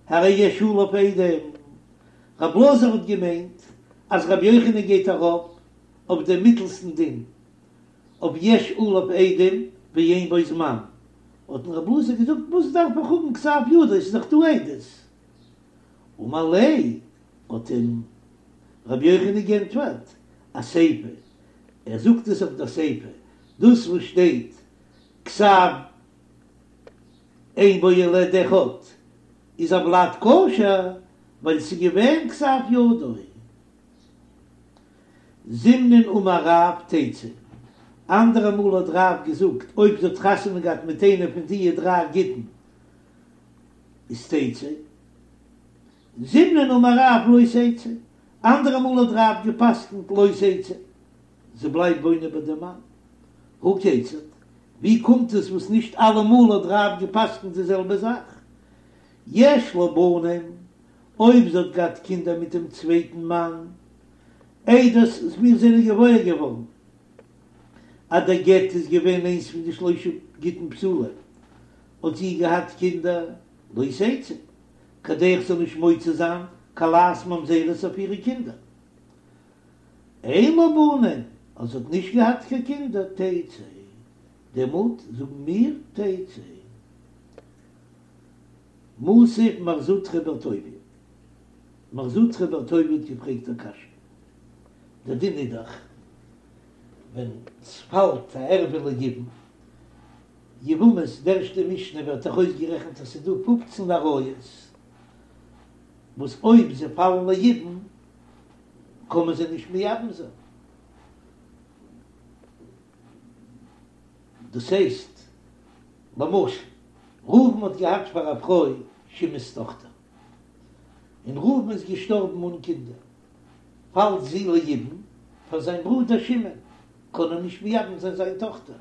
הרי יש עליו עדים, רב אלעזר האט געמיינט אז רבי יוחנן גייט ארויף אויף דעם מיטלסטן דין, אויף יש עליו עדים ואין בו זמן, האט אים רב אלעזר געזאגט, וואס דארף איך האבן כתב ידו, עס איז דאך דא עדות. אמר ליה, האט אים רבי יוחנן גענטפערט, אסיפא, ער זאגט עס אויף דער סיפא, דאס וואס שטייט כתב אין בו אלא עד אחד איז הולד כשר, ווייל ס'איז געווען כתב ידו. זימנין אמר רב תצא, אנדערע מאל האט רב געזאגט אויב זי האט חתונה געהאט מיט איינער פון דיע דריי גיטין איז תצא, זימנין אמר רב לא תצא, אנדערע מאל האט רב געפסקנט לא תצא, זי בלייבט וואוינען ביי דעם מאן. הא כיצד? ווי קומט עס וואס נישט אלעמאל האט רב געפסקנט די זעלבע זאך? יש לה בנים, אויב זי האט געהאט קינדער מיט דעם צווייטן מאן, איידער מיר זענען געוואויר געווארן אז דער גט איז געווען איינס פון די שלושה גיטין פסולים, האט זי געהאט קינדער, לא תצא, כדי איך זאל נישט מוציא זיין כלת ממזרות אויף אירע קינדער. אין לה בנים, אז זי האט נישט געהאט קיין קינדער, תצא, דעמאלט זאגן מיר תצא. מתיב מר זוטרא בר טוביה, מר זוטרא בר טוביה האט געפרעגט א קשיא, דער דין איז דאך ווען ס'פאלט א ערווה ליבום, יבמות, די ערשטע משנה ווערט דאך אויסגערעכנט אז ס'איז דא פופצן עריות וואס אויב זיי פאלן ליבום קען מען זיי נישט מייבם זיין, דאס הייסט למשל ראובן האט געהאט פאר א פרוי שמעון'ס טאכטער, און ראובן איז געשטארבן אן קינדער, פאלט זי ליבום פאר זיין ברודער שמעון, קען ער נישט מייבם זיין זיין טאכטער,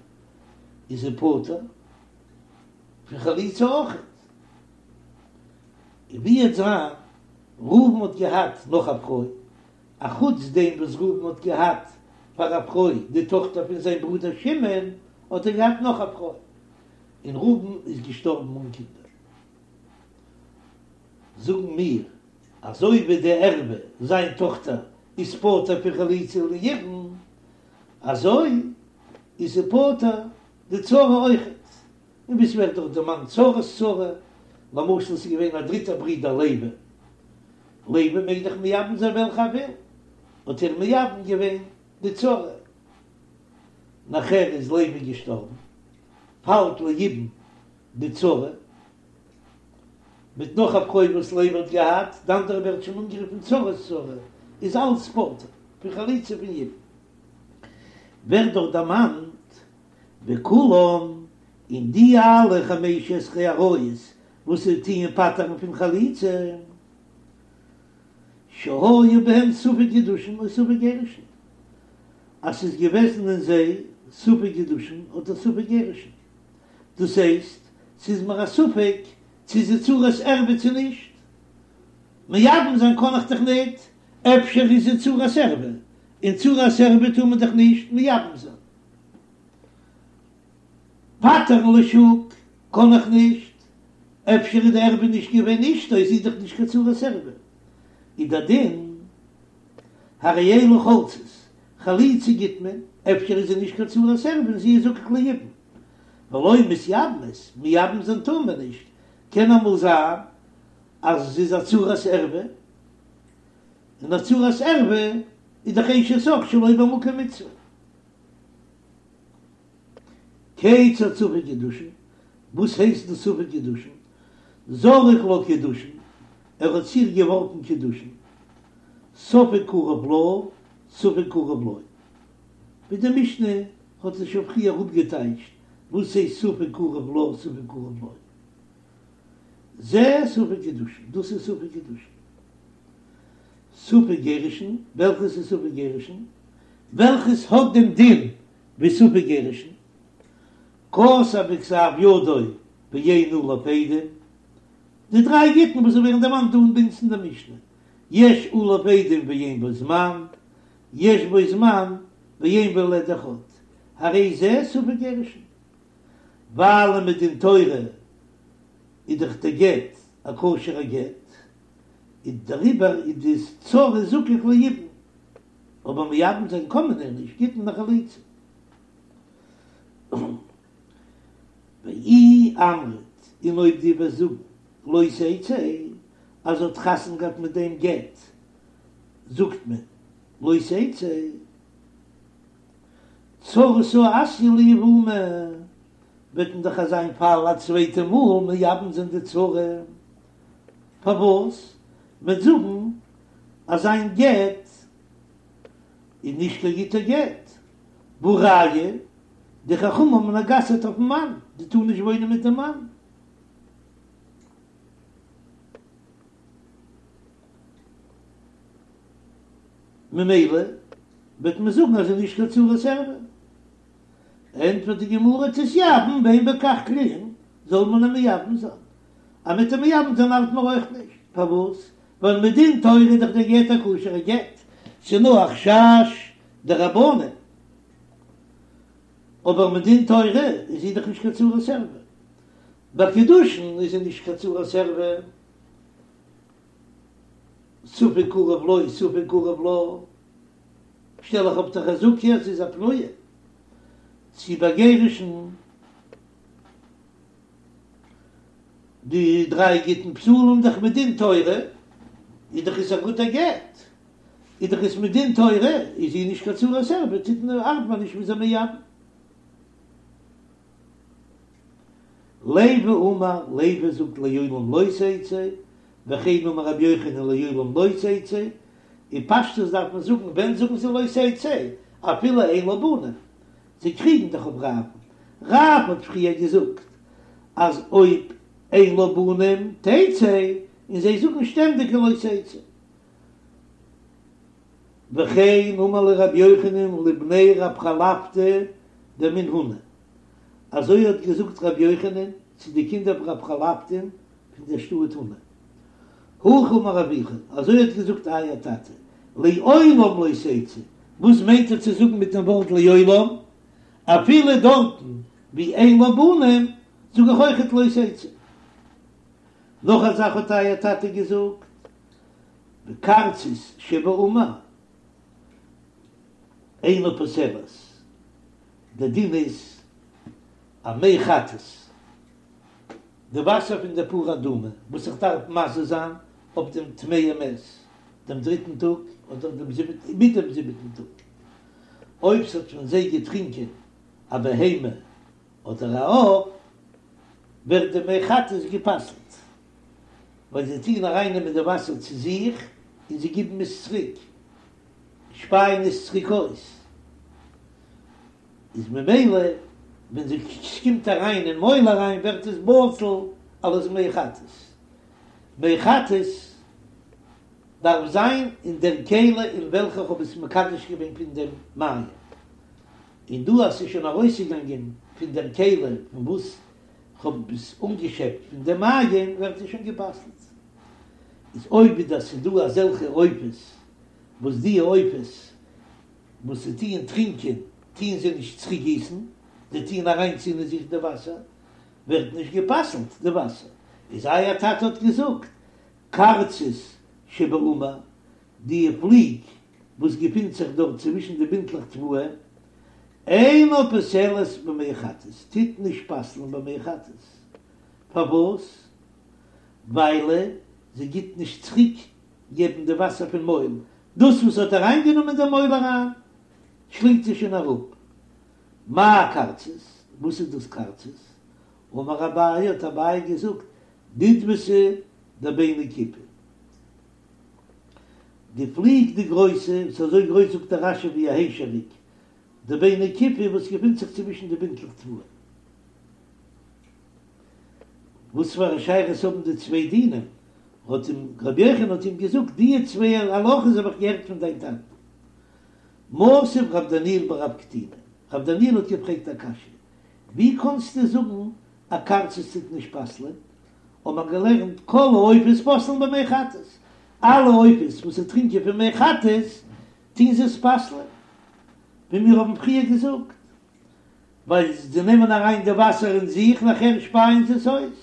איז ער פטור פון חליצה אויכעט. און ווי וועט זיין, ראובן האט געהאט נאך א פרוי, אחוץ דעם וואס ראובן האט געהאט פאר א פרוי די טאכטער פון זיין ברודער שמעון, האט ער געהאט נאך א פרוי, און ראובן איז געשטארבן אן קינדער. זאגן מיר, אזוי ווי די ערווה, זיין טאכטער, איז פטור פון חליצה וליבום, אזוי איז זי פטור די צרה אויכעט. און ווי ס'ווערט דאך דערמאנט צרת צרה, למשל ס'איז געווען א דריטער ברודער לוי, לוי מעג דאך מייבם זיין וועלכע ער וויל, האט ער מייבם געווען די צרה, נאכער איז לוי געשטארבן, פאלט ליבום די צרה, מיט נאך א פרוי וואס לוי האט געהאט, די אנדערע ווערט שוין אנגערופן צרת צרה, איז אלץ פטור פון חליצה פון יבום. ווערט דאך דערמאנט וכולם, און די אלע חמש עשרה עריות וואס זיי טוען פטר'ן פון חליצה, שהיה בהם ספק קידושין או ספק גירושין, אז ס'איז געוועזן אין זיי ספק קידושין אדער ספק גירושין, דאס הייסט, ס'איז מיר א ספק צו זי צרת ערווה צו נישט, מייבם זיין קען איך דאך ניט, אפשר איז זי צרת ערווה, און צרת ערווה טאר מען דאך נישט מייבם זיין. פטר'ן לשוק קען איך נישט, אפשר איז די ערווה נישט געווען אשתו, איז זי דאך נישט קיין צרת ערווה, איז דער דין הרי אלו חולצות, חליצה גיט מען, אפשר איז זי נישט קיין צרת ערווה און זי איז זקוק ליבום, ולא מתייבמות, מייבם זיין טאר מען נישט, קען אמאל זיין אז זי איז א צרת ערווה, און א צרת ערווה איז דאך אשת אח שלא במקום מצוה. כיצד ספק קידושין? וואס הייסט דאס ספק קידושין? זרק לה קידושין, ער האט צו איר געווארפן קידושין, ספק קרוב לה, ספק קרוב לו. ווי די משנה האט עס שוין פריער אפגעטייטשט וואס הייסט ספק קרוב לה ספק קרוב לו. זה ספק קידושין, דאס איז ספק קידושין. ספק גירושין, וועלכעס איז ספק גירושין? וועלכעס האט דעם דין ווי ספק גירושין? כתב בכתב ידו ואין עליו עדים, די דריי גיטין וואס ווערן דערמאנט דא ביי אונז אין די משנה, יש עליו עדים ואין בו זמן, יש בו זמן ואין בו אלא עד אחד, הרי זה ספק גירושין. ווייל מדין תורה איז דאך די גט א כשר'ע גט, איז דעריבער איז די צרה זקוק ליבום, אבער מייבם זיין קען מען איר נישט, גיט מען א חליצה. ואי אמרת, און אויב דו וועסט זאגן לא תצא, אז זי האט חתונה געהאט מיט דעם גט, זאגט מען לא תצא, צרתה אתיא ליבומי, וועט מען דאך אזא פאל א צווייטע מאל מייבם זיין די צרה, פארוואס? מ'וועט זאגן אז זיין גט איז נישט קיין גוטע גט, והא ראיה, די חכמים האבן גע'אסר'ט אויפן מאן, זי טאר נישט וואוינען מיט דעם מאן. ממילא וועט מען זאגן אז זי איז נישט קיין צרת ערווה. ענטפערט די גמרא תתייבם ואין בכך כלום, זאל מען איר מייבם זיין. אז מ'וועט איר מייבם זיין ארט מיר אויך נישט. פארוואס? ווייל מדין תורה איז דאך דער גט א כשר'ע גט, ס'איז נאר א חשש דרבנן. אבער מדין תורה איז זי דאך נישט קיין צרת ערווה. ביי קידושין איז זי נישט קיין צרת ערווה. ספק קרוב לו ספק קרוב לה, שטעל איך אפ די חזקה אז זי איז א פנויה, צו ביי גירושין די דריי גיטין פסולים דאך מדין תורה איז דאך עס א גוטע גט, איז דאך עס מדין תורה איז זי נישט קיין צרת ערווה טוט מען ארט מען נישט מ'איז איר מייבם. לוי אמר, לוי זאגט לעולם לא תצא, וכן אמר רבי יוחנן לעולם לא תצא, אין פשטות דארף מען זאגן ווען זאגן זיי לא תצא, אפילו אין לה בנים, זיי קריגן דאך אויף רב, רב האט פריער געזאגט אז אויב אין לה בנים תצא, און זיי זאגן שטענדיג לא תצא. וכן אמר להו רבי יוחנן לבני רב חלפתא דמן הונא, אזוי האט געזאגט רבי יוחנן צו די קינדער פון רב חלפתא'ן פון דער שטאט הונא. הכי אמר אבוכון, אזוי האט געזאגט אייער טאטע, לעולם לא תצא, וואס מיינט ער צו זאגן מיט דעם ווארט לעולם? אפילו דארטן ווי אין לה בנים זאג איך אויכעט לא תצא. נאך א זאך האט אייער טאטע געזאגט, וקרצית שבעמיר אינה פוסלת, דער דין איז א מי חטאת, די וואסער פון די פרה אדומה וואס איך דארף מזה זיין אויף דעם טמא מת דעם דריטן טאג אדער דעם זיבעטן מיט דעם זיבעטן טאג, אויב ס'האט פון זיי געטרינקען א בהמה אדער א עוף, ווערט די מי חטאת גע'פסל'ט. ווייל זיי טוען ארייננעמען די וואסער צו זיך און זיי גיבן עס צוריק, שפייען עס צוריק אויס, איז ממילא ווען ס'קומט אריין אין מויל אריין ווערט עס בטל אלס מי חטאת. מי חטאת דארף זיין אין דער כלי אין וועלכע איך האב עס מקדש געווען פון דעם מעיין, און דא אז ס'איז שוין ארויסגעגאנגען פון דער כלי פון וואס כ'האב עס אנגעשעפט פון די מעיין ווערט עס שוין גע'פסל'ט. איז אויב איז דאס ס'דא אזעלכע עופות וואס די עופות וואס זיי טוען טרינקען טוען זיי נישט צוריק גיסן, זיי טוען אריינציען אין זיך די וואסער, ווערט נישט גע'פסל'ט די וואסער. איז אייער טאטע האט געזאגט קרצית שבעמיר, די פליג וואס געפינט זיך דארט צווישן די בינטלעך תבואה, אינה פוסלת במי חטאת, טוט נישט פסל'ן במי חטאת, פארוואס? וויילע זי גיט נישט צוריק געבן די וואסער פון מויל, דאס וואס האט אריינגענומען אין די מויל אריין שלינגט זי שוין אראפ. מאי קרצית? וואס איז דאס קרצית? אמר אביי, האט אביי געזאגט, דודבתא דביני כיפי. די פליג די גרויסע, וואס איז אזוי גרויס זאגט דער רש"י ווי א היישעריק, דביני כיפי וואס געפינט זיך צווישן די בינטלעך תבואה. וואס פאר א שייכות האבן די צוויי דינים? האט אים רבי יוחנן האט אים געזאגט, די צוויי הלכות האב איך געהערט פון דיין טאטן. מתיב רב דניאל בר רב קטינא, רב דניאל האט געפרעגט א קשיא, ווי קאנסטו זאגן א קרצית טוט נישט פסל'ען? האט מען געלערנט כל העופות פוסלין במי חטאת, אלע עופות וואס זיי טרינקען פון מי חטאת טוהן זיי עס פסל'ען, ווי מיר האבן פריער געזאגט, ווייל זיי נעמען אריין די וואסער אין זיך נאכער שפייען זיי עס אויס.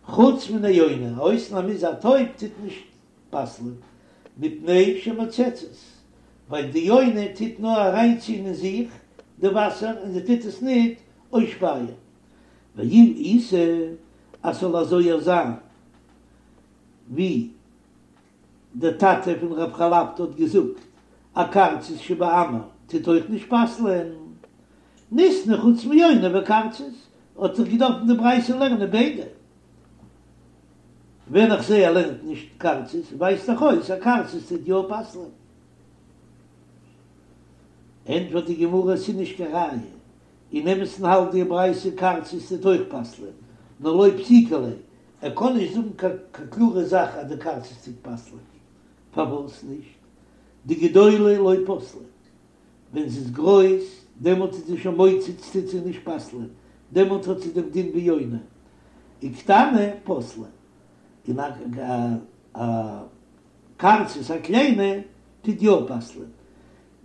חוץ מן היונה, א אויסנאם איז א טויב טוט נישט פסל'ען, מפני שמוצצת, ווייל די יונה טוט נאר אריינציען אין זיך די וואסער און זי טוט עס ניט אויסשפייען. ואם איתא אז ס'זאל אזוי זיין ווי דער טאטע פון רב חלפתא האט געזאגט, א קרצית שבעמיר טוט אויך נישט פסל'ען, ניתני חוץ מיונה וקרצית, האט זיך געדארפט אין די ברייתא לערנען ביידע. ווען איך זעה ער לערנט נישט קרצית ווייזט דאך אויס אז קרצית טוט יא פסל'ען. ענטפערט די גמרא עס איז נישט קיין ראיה, אין אמת'ן האלט די ברייתא קרצית טוט אויך פסל'ען, נאר לא פסיקא ליה, ער קען נישט זאגן קיין קלארע זאך אז די קרצית טוט פסל'ען. פארוואס נישט? דגדולה לא פסלה, ווען זי איז גרויס דעמאלט איז זי שוין מוצץ טוט זי נישט פסל'ען, דעמאלט האט זי דעם דין ווי יונה, וקטנה פסלה, און א קרצית א קליינע טוט יא פסל'ען,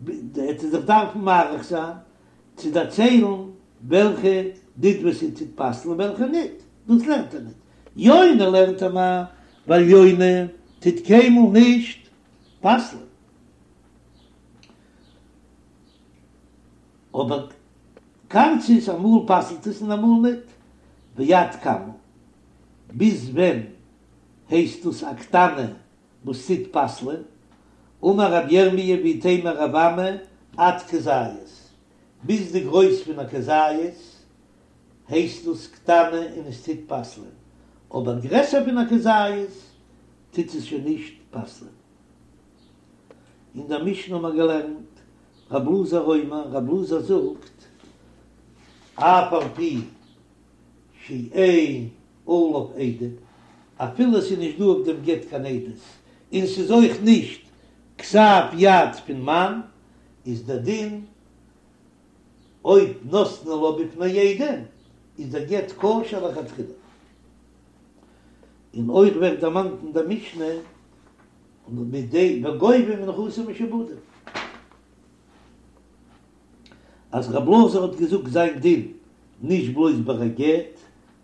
עט ער זיך דארפן מאריך זיין צו דערציילן וועלכע דודבתא טוט פסל'ן און וועלכע ניט, דאס לערנט ער ניט, יונה לערנט ער מיר, ווייל יונה טוט קיינמאל נישט פסל'ען. אבער קרצית אמאל פסל'ט עס און אמאל ניט, ועד כמה, ביז ווען הייסט דאס א קטנה וואס טוט פסל'ען, אמר רב ירמי' ואיתימא רב אמי עד כזית, ביז די גרויס פון א כזית הייסט דאס קטנה און עס טוט פסל'ען, אבער גרעסער פון א כזית טוט עס שוין נישט פסל'ען. אין דער משנה האט מען געלערנט, רב אלעזר אומר, רב אלעזר זאגט, אף על פי שאין עליו עדים, אפילו עס איז נישט דא אויף דעם גט קיין עדות, און ס'איז אויך נישט כתב יד פון מאן, איז דער דין, אויב נתנו לה בפני עדים, איז דער גט כשר לכתחילה. און אויך ווערט דערמאנט אין דער משנה, און מיט די וגובה מנכסים משועבדים. אז רב אלעזר האט געזאגט זיין דין נישט בלויז ביי א גט,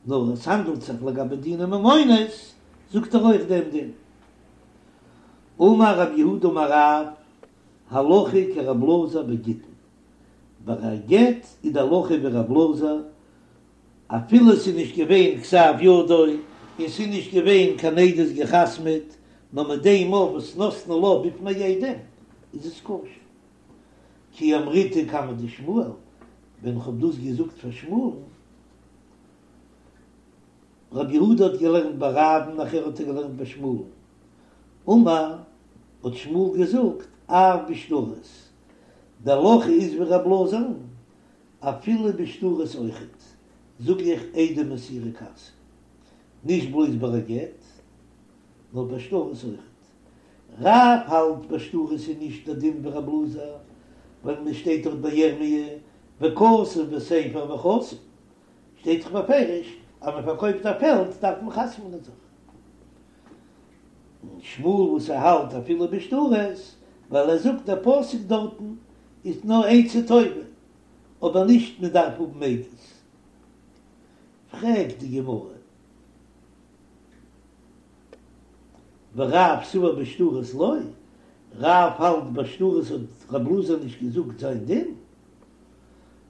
נאר עס האנדלט זיך לגבי דיני ממונות, זאגט ער אויך דעם דין. אמר רב יהודה אמר רב, הלכה כרב אלעזר בגיטין, ביי א גט איז די הלכה ווי רב אלעזר, אפילו ס'איז נישט געווען כתב ידו און ס'איז נישט געווען קיין עדות געחתמ'עט, נאר מיט דעם מאל וואס נתנו לה בפני עדים איז עס כשר. כי אמריתה קמיה דשמואל, ווען כ'האב דאס געזאגט פאר שמואל'ן, רב יהודה האט געלערנט ביי רב'ן נאכער האט ער געלערנט ביי שמואל'ן, אמר, האט שמואל געזאגט, אף בשטרות, די הלכה איז ווי רב אלעזר'ן, אפילו בשטרות אויכעט, זאג איך עדי מסירה כרתי, נישט בלויז ביי א גט, נאר ביי שטרות אויכעט. רב האלט ביי שטרות איז נישט דער דין ווי רב אלעזר, ווייל מען שטייט דאך ביי ירמי' וכתוב בספר וחתום, שטייט דאך בפירוש אז מען פארקויפט א פעלד דארף מען חתמ'נען זיך. און שמואל וואס ער האלט אפילו בשטרות, ווייל ער זאגט דער פסוק דארטן איז נאר עצה טובה, אבער נישט מען דארף האבן עדות. פרעגט די גמרא, ורב סבר בשטרות לא, רב האלט ביי שטרות האט רב אלעזר נישט געזאגט זיין דין,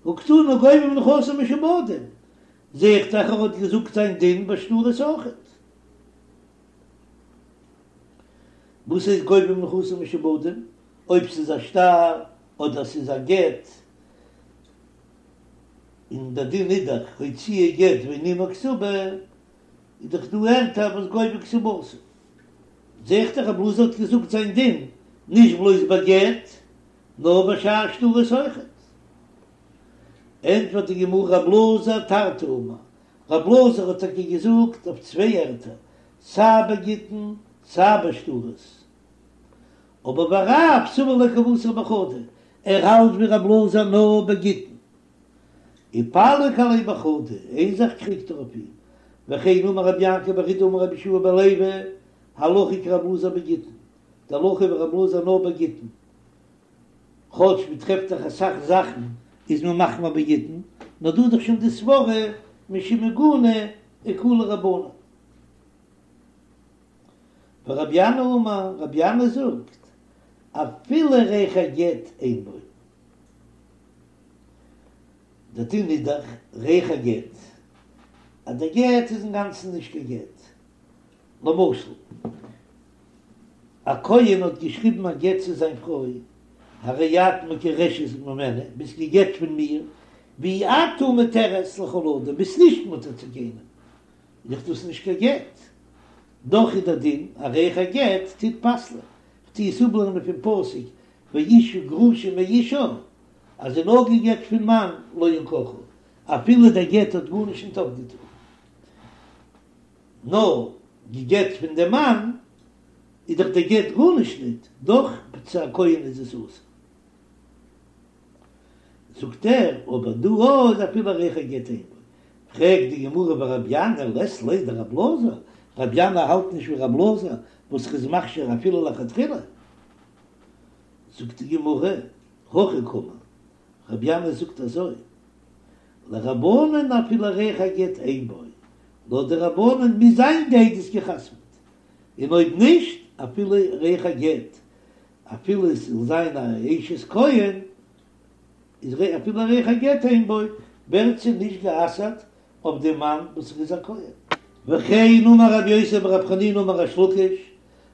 הא קתני גובה מנכסים משועבדים, זעה איך דאך ער האט געזאגט זיין דין ביי שטרות אויכעט. וואס הייסט גובה מנכסים משועבדים? אויב ס'איז א שטר אדער ס'איז א גט. און דער דין איז דאך הוציאה גט ואין עמה כתובה, איז דאך דא ערטער וואס גובה כתובתה. זע איך דאך רב אלעזר האט געזאגט זיין דין נישט בלויז ביי גט, נאר ביי שאר שטרות אויכעט. ענטפערט די גמרא רב אלעזר תרתי אמר, רב אלעזר האט טאקע געזאגט אויף צוויי ערטער, סיי ביי גיטין סיי ביי שטרות, אבער ורב סבר לה כוותיה בחדא, ער האלט ווי רב אלעזר נאר ביי גיטין. ופליג עליה בחדא, איין זאך קריגט ער אויף אים, וכן אמר רבי יעקב בר אידי אמר רבי יהושע בן לוי, הלכה כרב אלעזר בגיטין, די הלכה ווי רב אלעזר נאר ביי גיטין, כאטש מען טרעפט דאך אסאך זאכן איז מען מחמיר ביי גיטין, נאר דא איז דאך שוין די סברא משום עיגונא אקילו רבנן. ורבי ינאי אמר, רבי ינאי זאגט, אפילו ריח הגט אין בו. דער דין איז דאך ריח הגט, אז דער גט איז אינגאנצן נישט קיין גט. למשל, א כהן האט געשריבן א גט צו זיין פרוי, הרי את מגורשת ממני, ביסט גע'גט פון מיר, ואי את מותרת לכל אדם, ביסט נישט מותר צו קיינעם, איז דאך דאס נישט קיין גט. דאך איז דער דין, א ריח הגט טוט פסל'ען. כ'טו עס אפלערנען פון פסוק ואשה גרושה מאישה, אז זי איז נאר גע'גט פון מאן לא יקחו, אפילו דער גט האט גארנישט נישט אויפגעטון, נאר גע'גט פון דעם מאן, איז דאך דער גט גארנישט ניט, דאך צו א כהן איז עס אסור. זאגט ער, אבער דא איז אפילו ריח הגט אין בו. פרעגט די גמרא ורבי ינאי לית ליה דרב אלעזר, רבי ינאי האלט נישט ווי רב אלעזר וואס ר'איז מכשיר אפילו לכתחילה. זאגט די גמרא, הכי קאמר, רבי ינאי זאגט אזוי, לרבנן אפילו ריח הגט אין בו, לויט די רבנן מוז זיין די עדות גע'חתמ'ט, און אויב נישט אפילו ריח הגט, אפילו עס זאל זיין א אשת כהן, איז אפילו ריח הגט אין בו, ווערט זי נישט גע'אסר'ט אויף דעם מאן וואס איז א כהן. וכן אמר רבי יוסי ברב חנינא אמר ריש לקיש,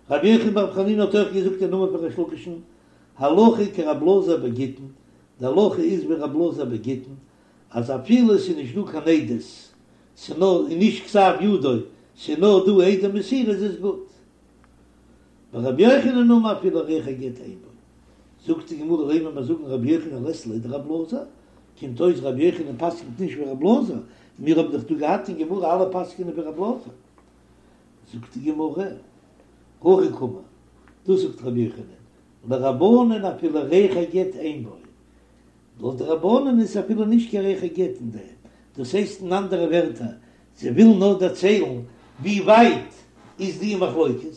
רבי יוחנן ברב חנינא האט אויך געזאגט אין נאמען פון ריש לקיש'ן, הלכה כרב אלעזר בגיטין, די הלכה איז ווי רב אלעזר בגיטין, אז אפילו עס איז נישט דא קיין עדות, ס'איז נאר און נישט כתב ידו, ס'איז נאר דא עדי מסירה איז עס גוט. ורבי יוחנן אמר אפילו ריח הגט אין בו. זאגט די גמרא לימא מיר זאגן רבי יוחנן לית ליה דרב אלעזר, קומט אויס רבי יוחנן פסק'נט נישט ווי רב אלעזר, מיר האבן דאך דא געהאט אין גמרא אלע פסק'נען ווי רב אלעזר. זאגט די גמרא, הכי קאמר, דאס זאגט רבי יוחנן, לרבנן אפילו ריח הגט אין בו, לויט די רבנן איז אפילו נישט קיין ריח הגט אין דעם, דאס הייסט אין אנדערע ווערטער, זיי ווילן נאר דערציילן ווי ווייט איז די מחלוקת,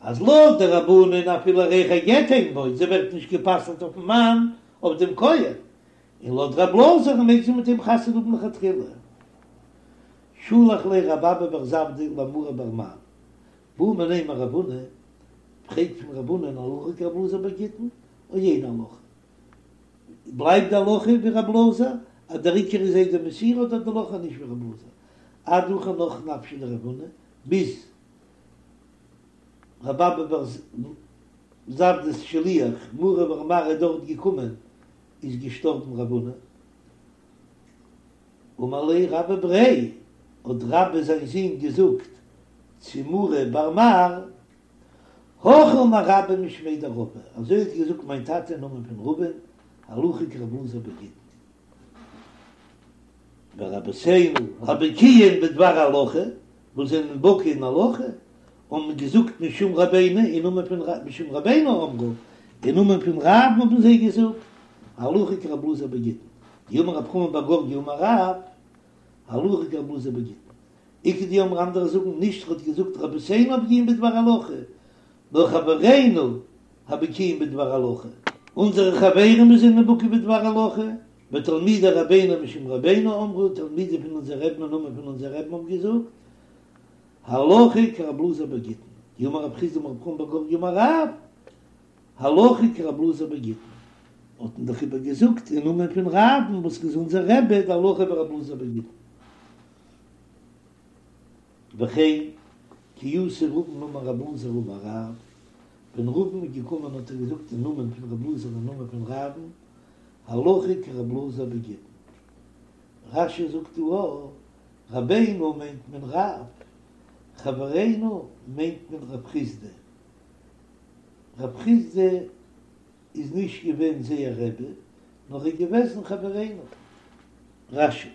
אז לויט די רבנן אפילו ריח הגט אין בו, זי ווערט נישט גע'פסל'ט אויפן מאן אויף דעם כהן, און לויט רב אלעזר מעג זי מיט אים חתונה האבן לכתחילה. שלח ליה רב אבא בר זבדא למרי בר מר, בעא מיניה מרב הונא, פרעג פון רב הונא הלכה כרב אלעזר בגיטין, או אין הלכה. בלייבט די הלכה ווי רב אלעזר אז דער עיקר איז עדי מסירה אדער די הלכה נישט ווי רב אלעזר עד הכא נח נפשיה דרב הונא ביז רב אבא בר זבדא'ס שליח מרי בר מר איז דארט געקומען איז געשטארבן רב הונא אמר ליה רבה בריה האט רבה זיין זון געזאגט צו מרי בר מר הכי אמר רבה משמיה דרבא, אזוי האט געזאגט מיין טאטע אין נאמען פון רבא'ן, הלכה כרב אלעזר בגיטין. ורבותינו הבקיאין בדבר הלכה, וואס זענען בקי אין הלכה, האבן געזאגט משום רבינו, אין נאמען פון משום רבינו אמרו, אין נאמען פון רב'ן האבן זיי געזאגט, הלכה כרב אלעזר בגיטין. דאמר רב חמא בר גורגי אמר רב, הלכה כרב אלעזר בגיטין. איכא דאמרי אנדערע זאגן נישט ר'האט געזאגט רבותינו הבקיאים בדבר הלכה, נאר חברינו הבקיאים בדבר הלכה, אונזערע חברים וואס זענען בקי בדבר הלכה, ותלמידי רבינו משום רבינו אמרו, תלמידים פון אונזער רבי'ן אין נאמען פון אונזער רבי'ן האבן געזאגט, הלכה כרב אלעזר בגיטין, דאמר רב חסדא אמר רב חמא בר גורגי אמר רב, הלכה כרב אלעזר בגיטין, האט מען דאך איבער געזאגט אין נאמען פון רב'ן וואס איז אונזער רבי די הלכה ווי רב אלעזר בגיטין. וכן, כי אתא רבין אמר רב אלעזר אמר רב, ווען רבין איז געקומען האט ער געזאגט אין נאמען פון רב אלעזר אין נאמען פון רב'ן, הלכה כרב אלעזר בגיטין. רש"י זאגט דא א, רבינו מיינט מען רב, חברינו מיינט מען רב חסדא. רב חסדא איז נישט געווען זייער רבי, נאר איז געוועזן חברינו. רש"י.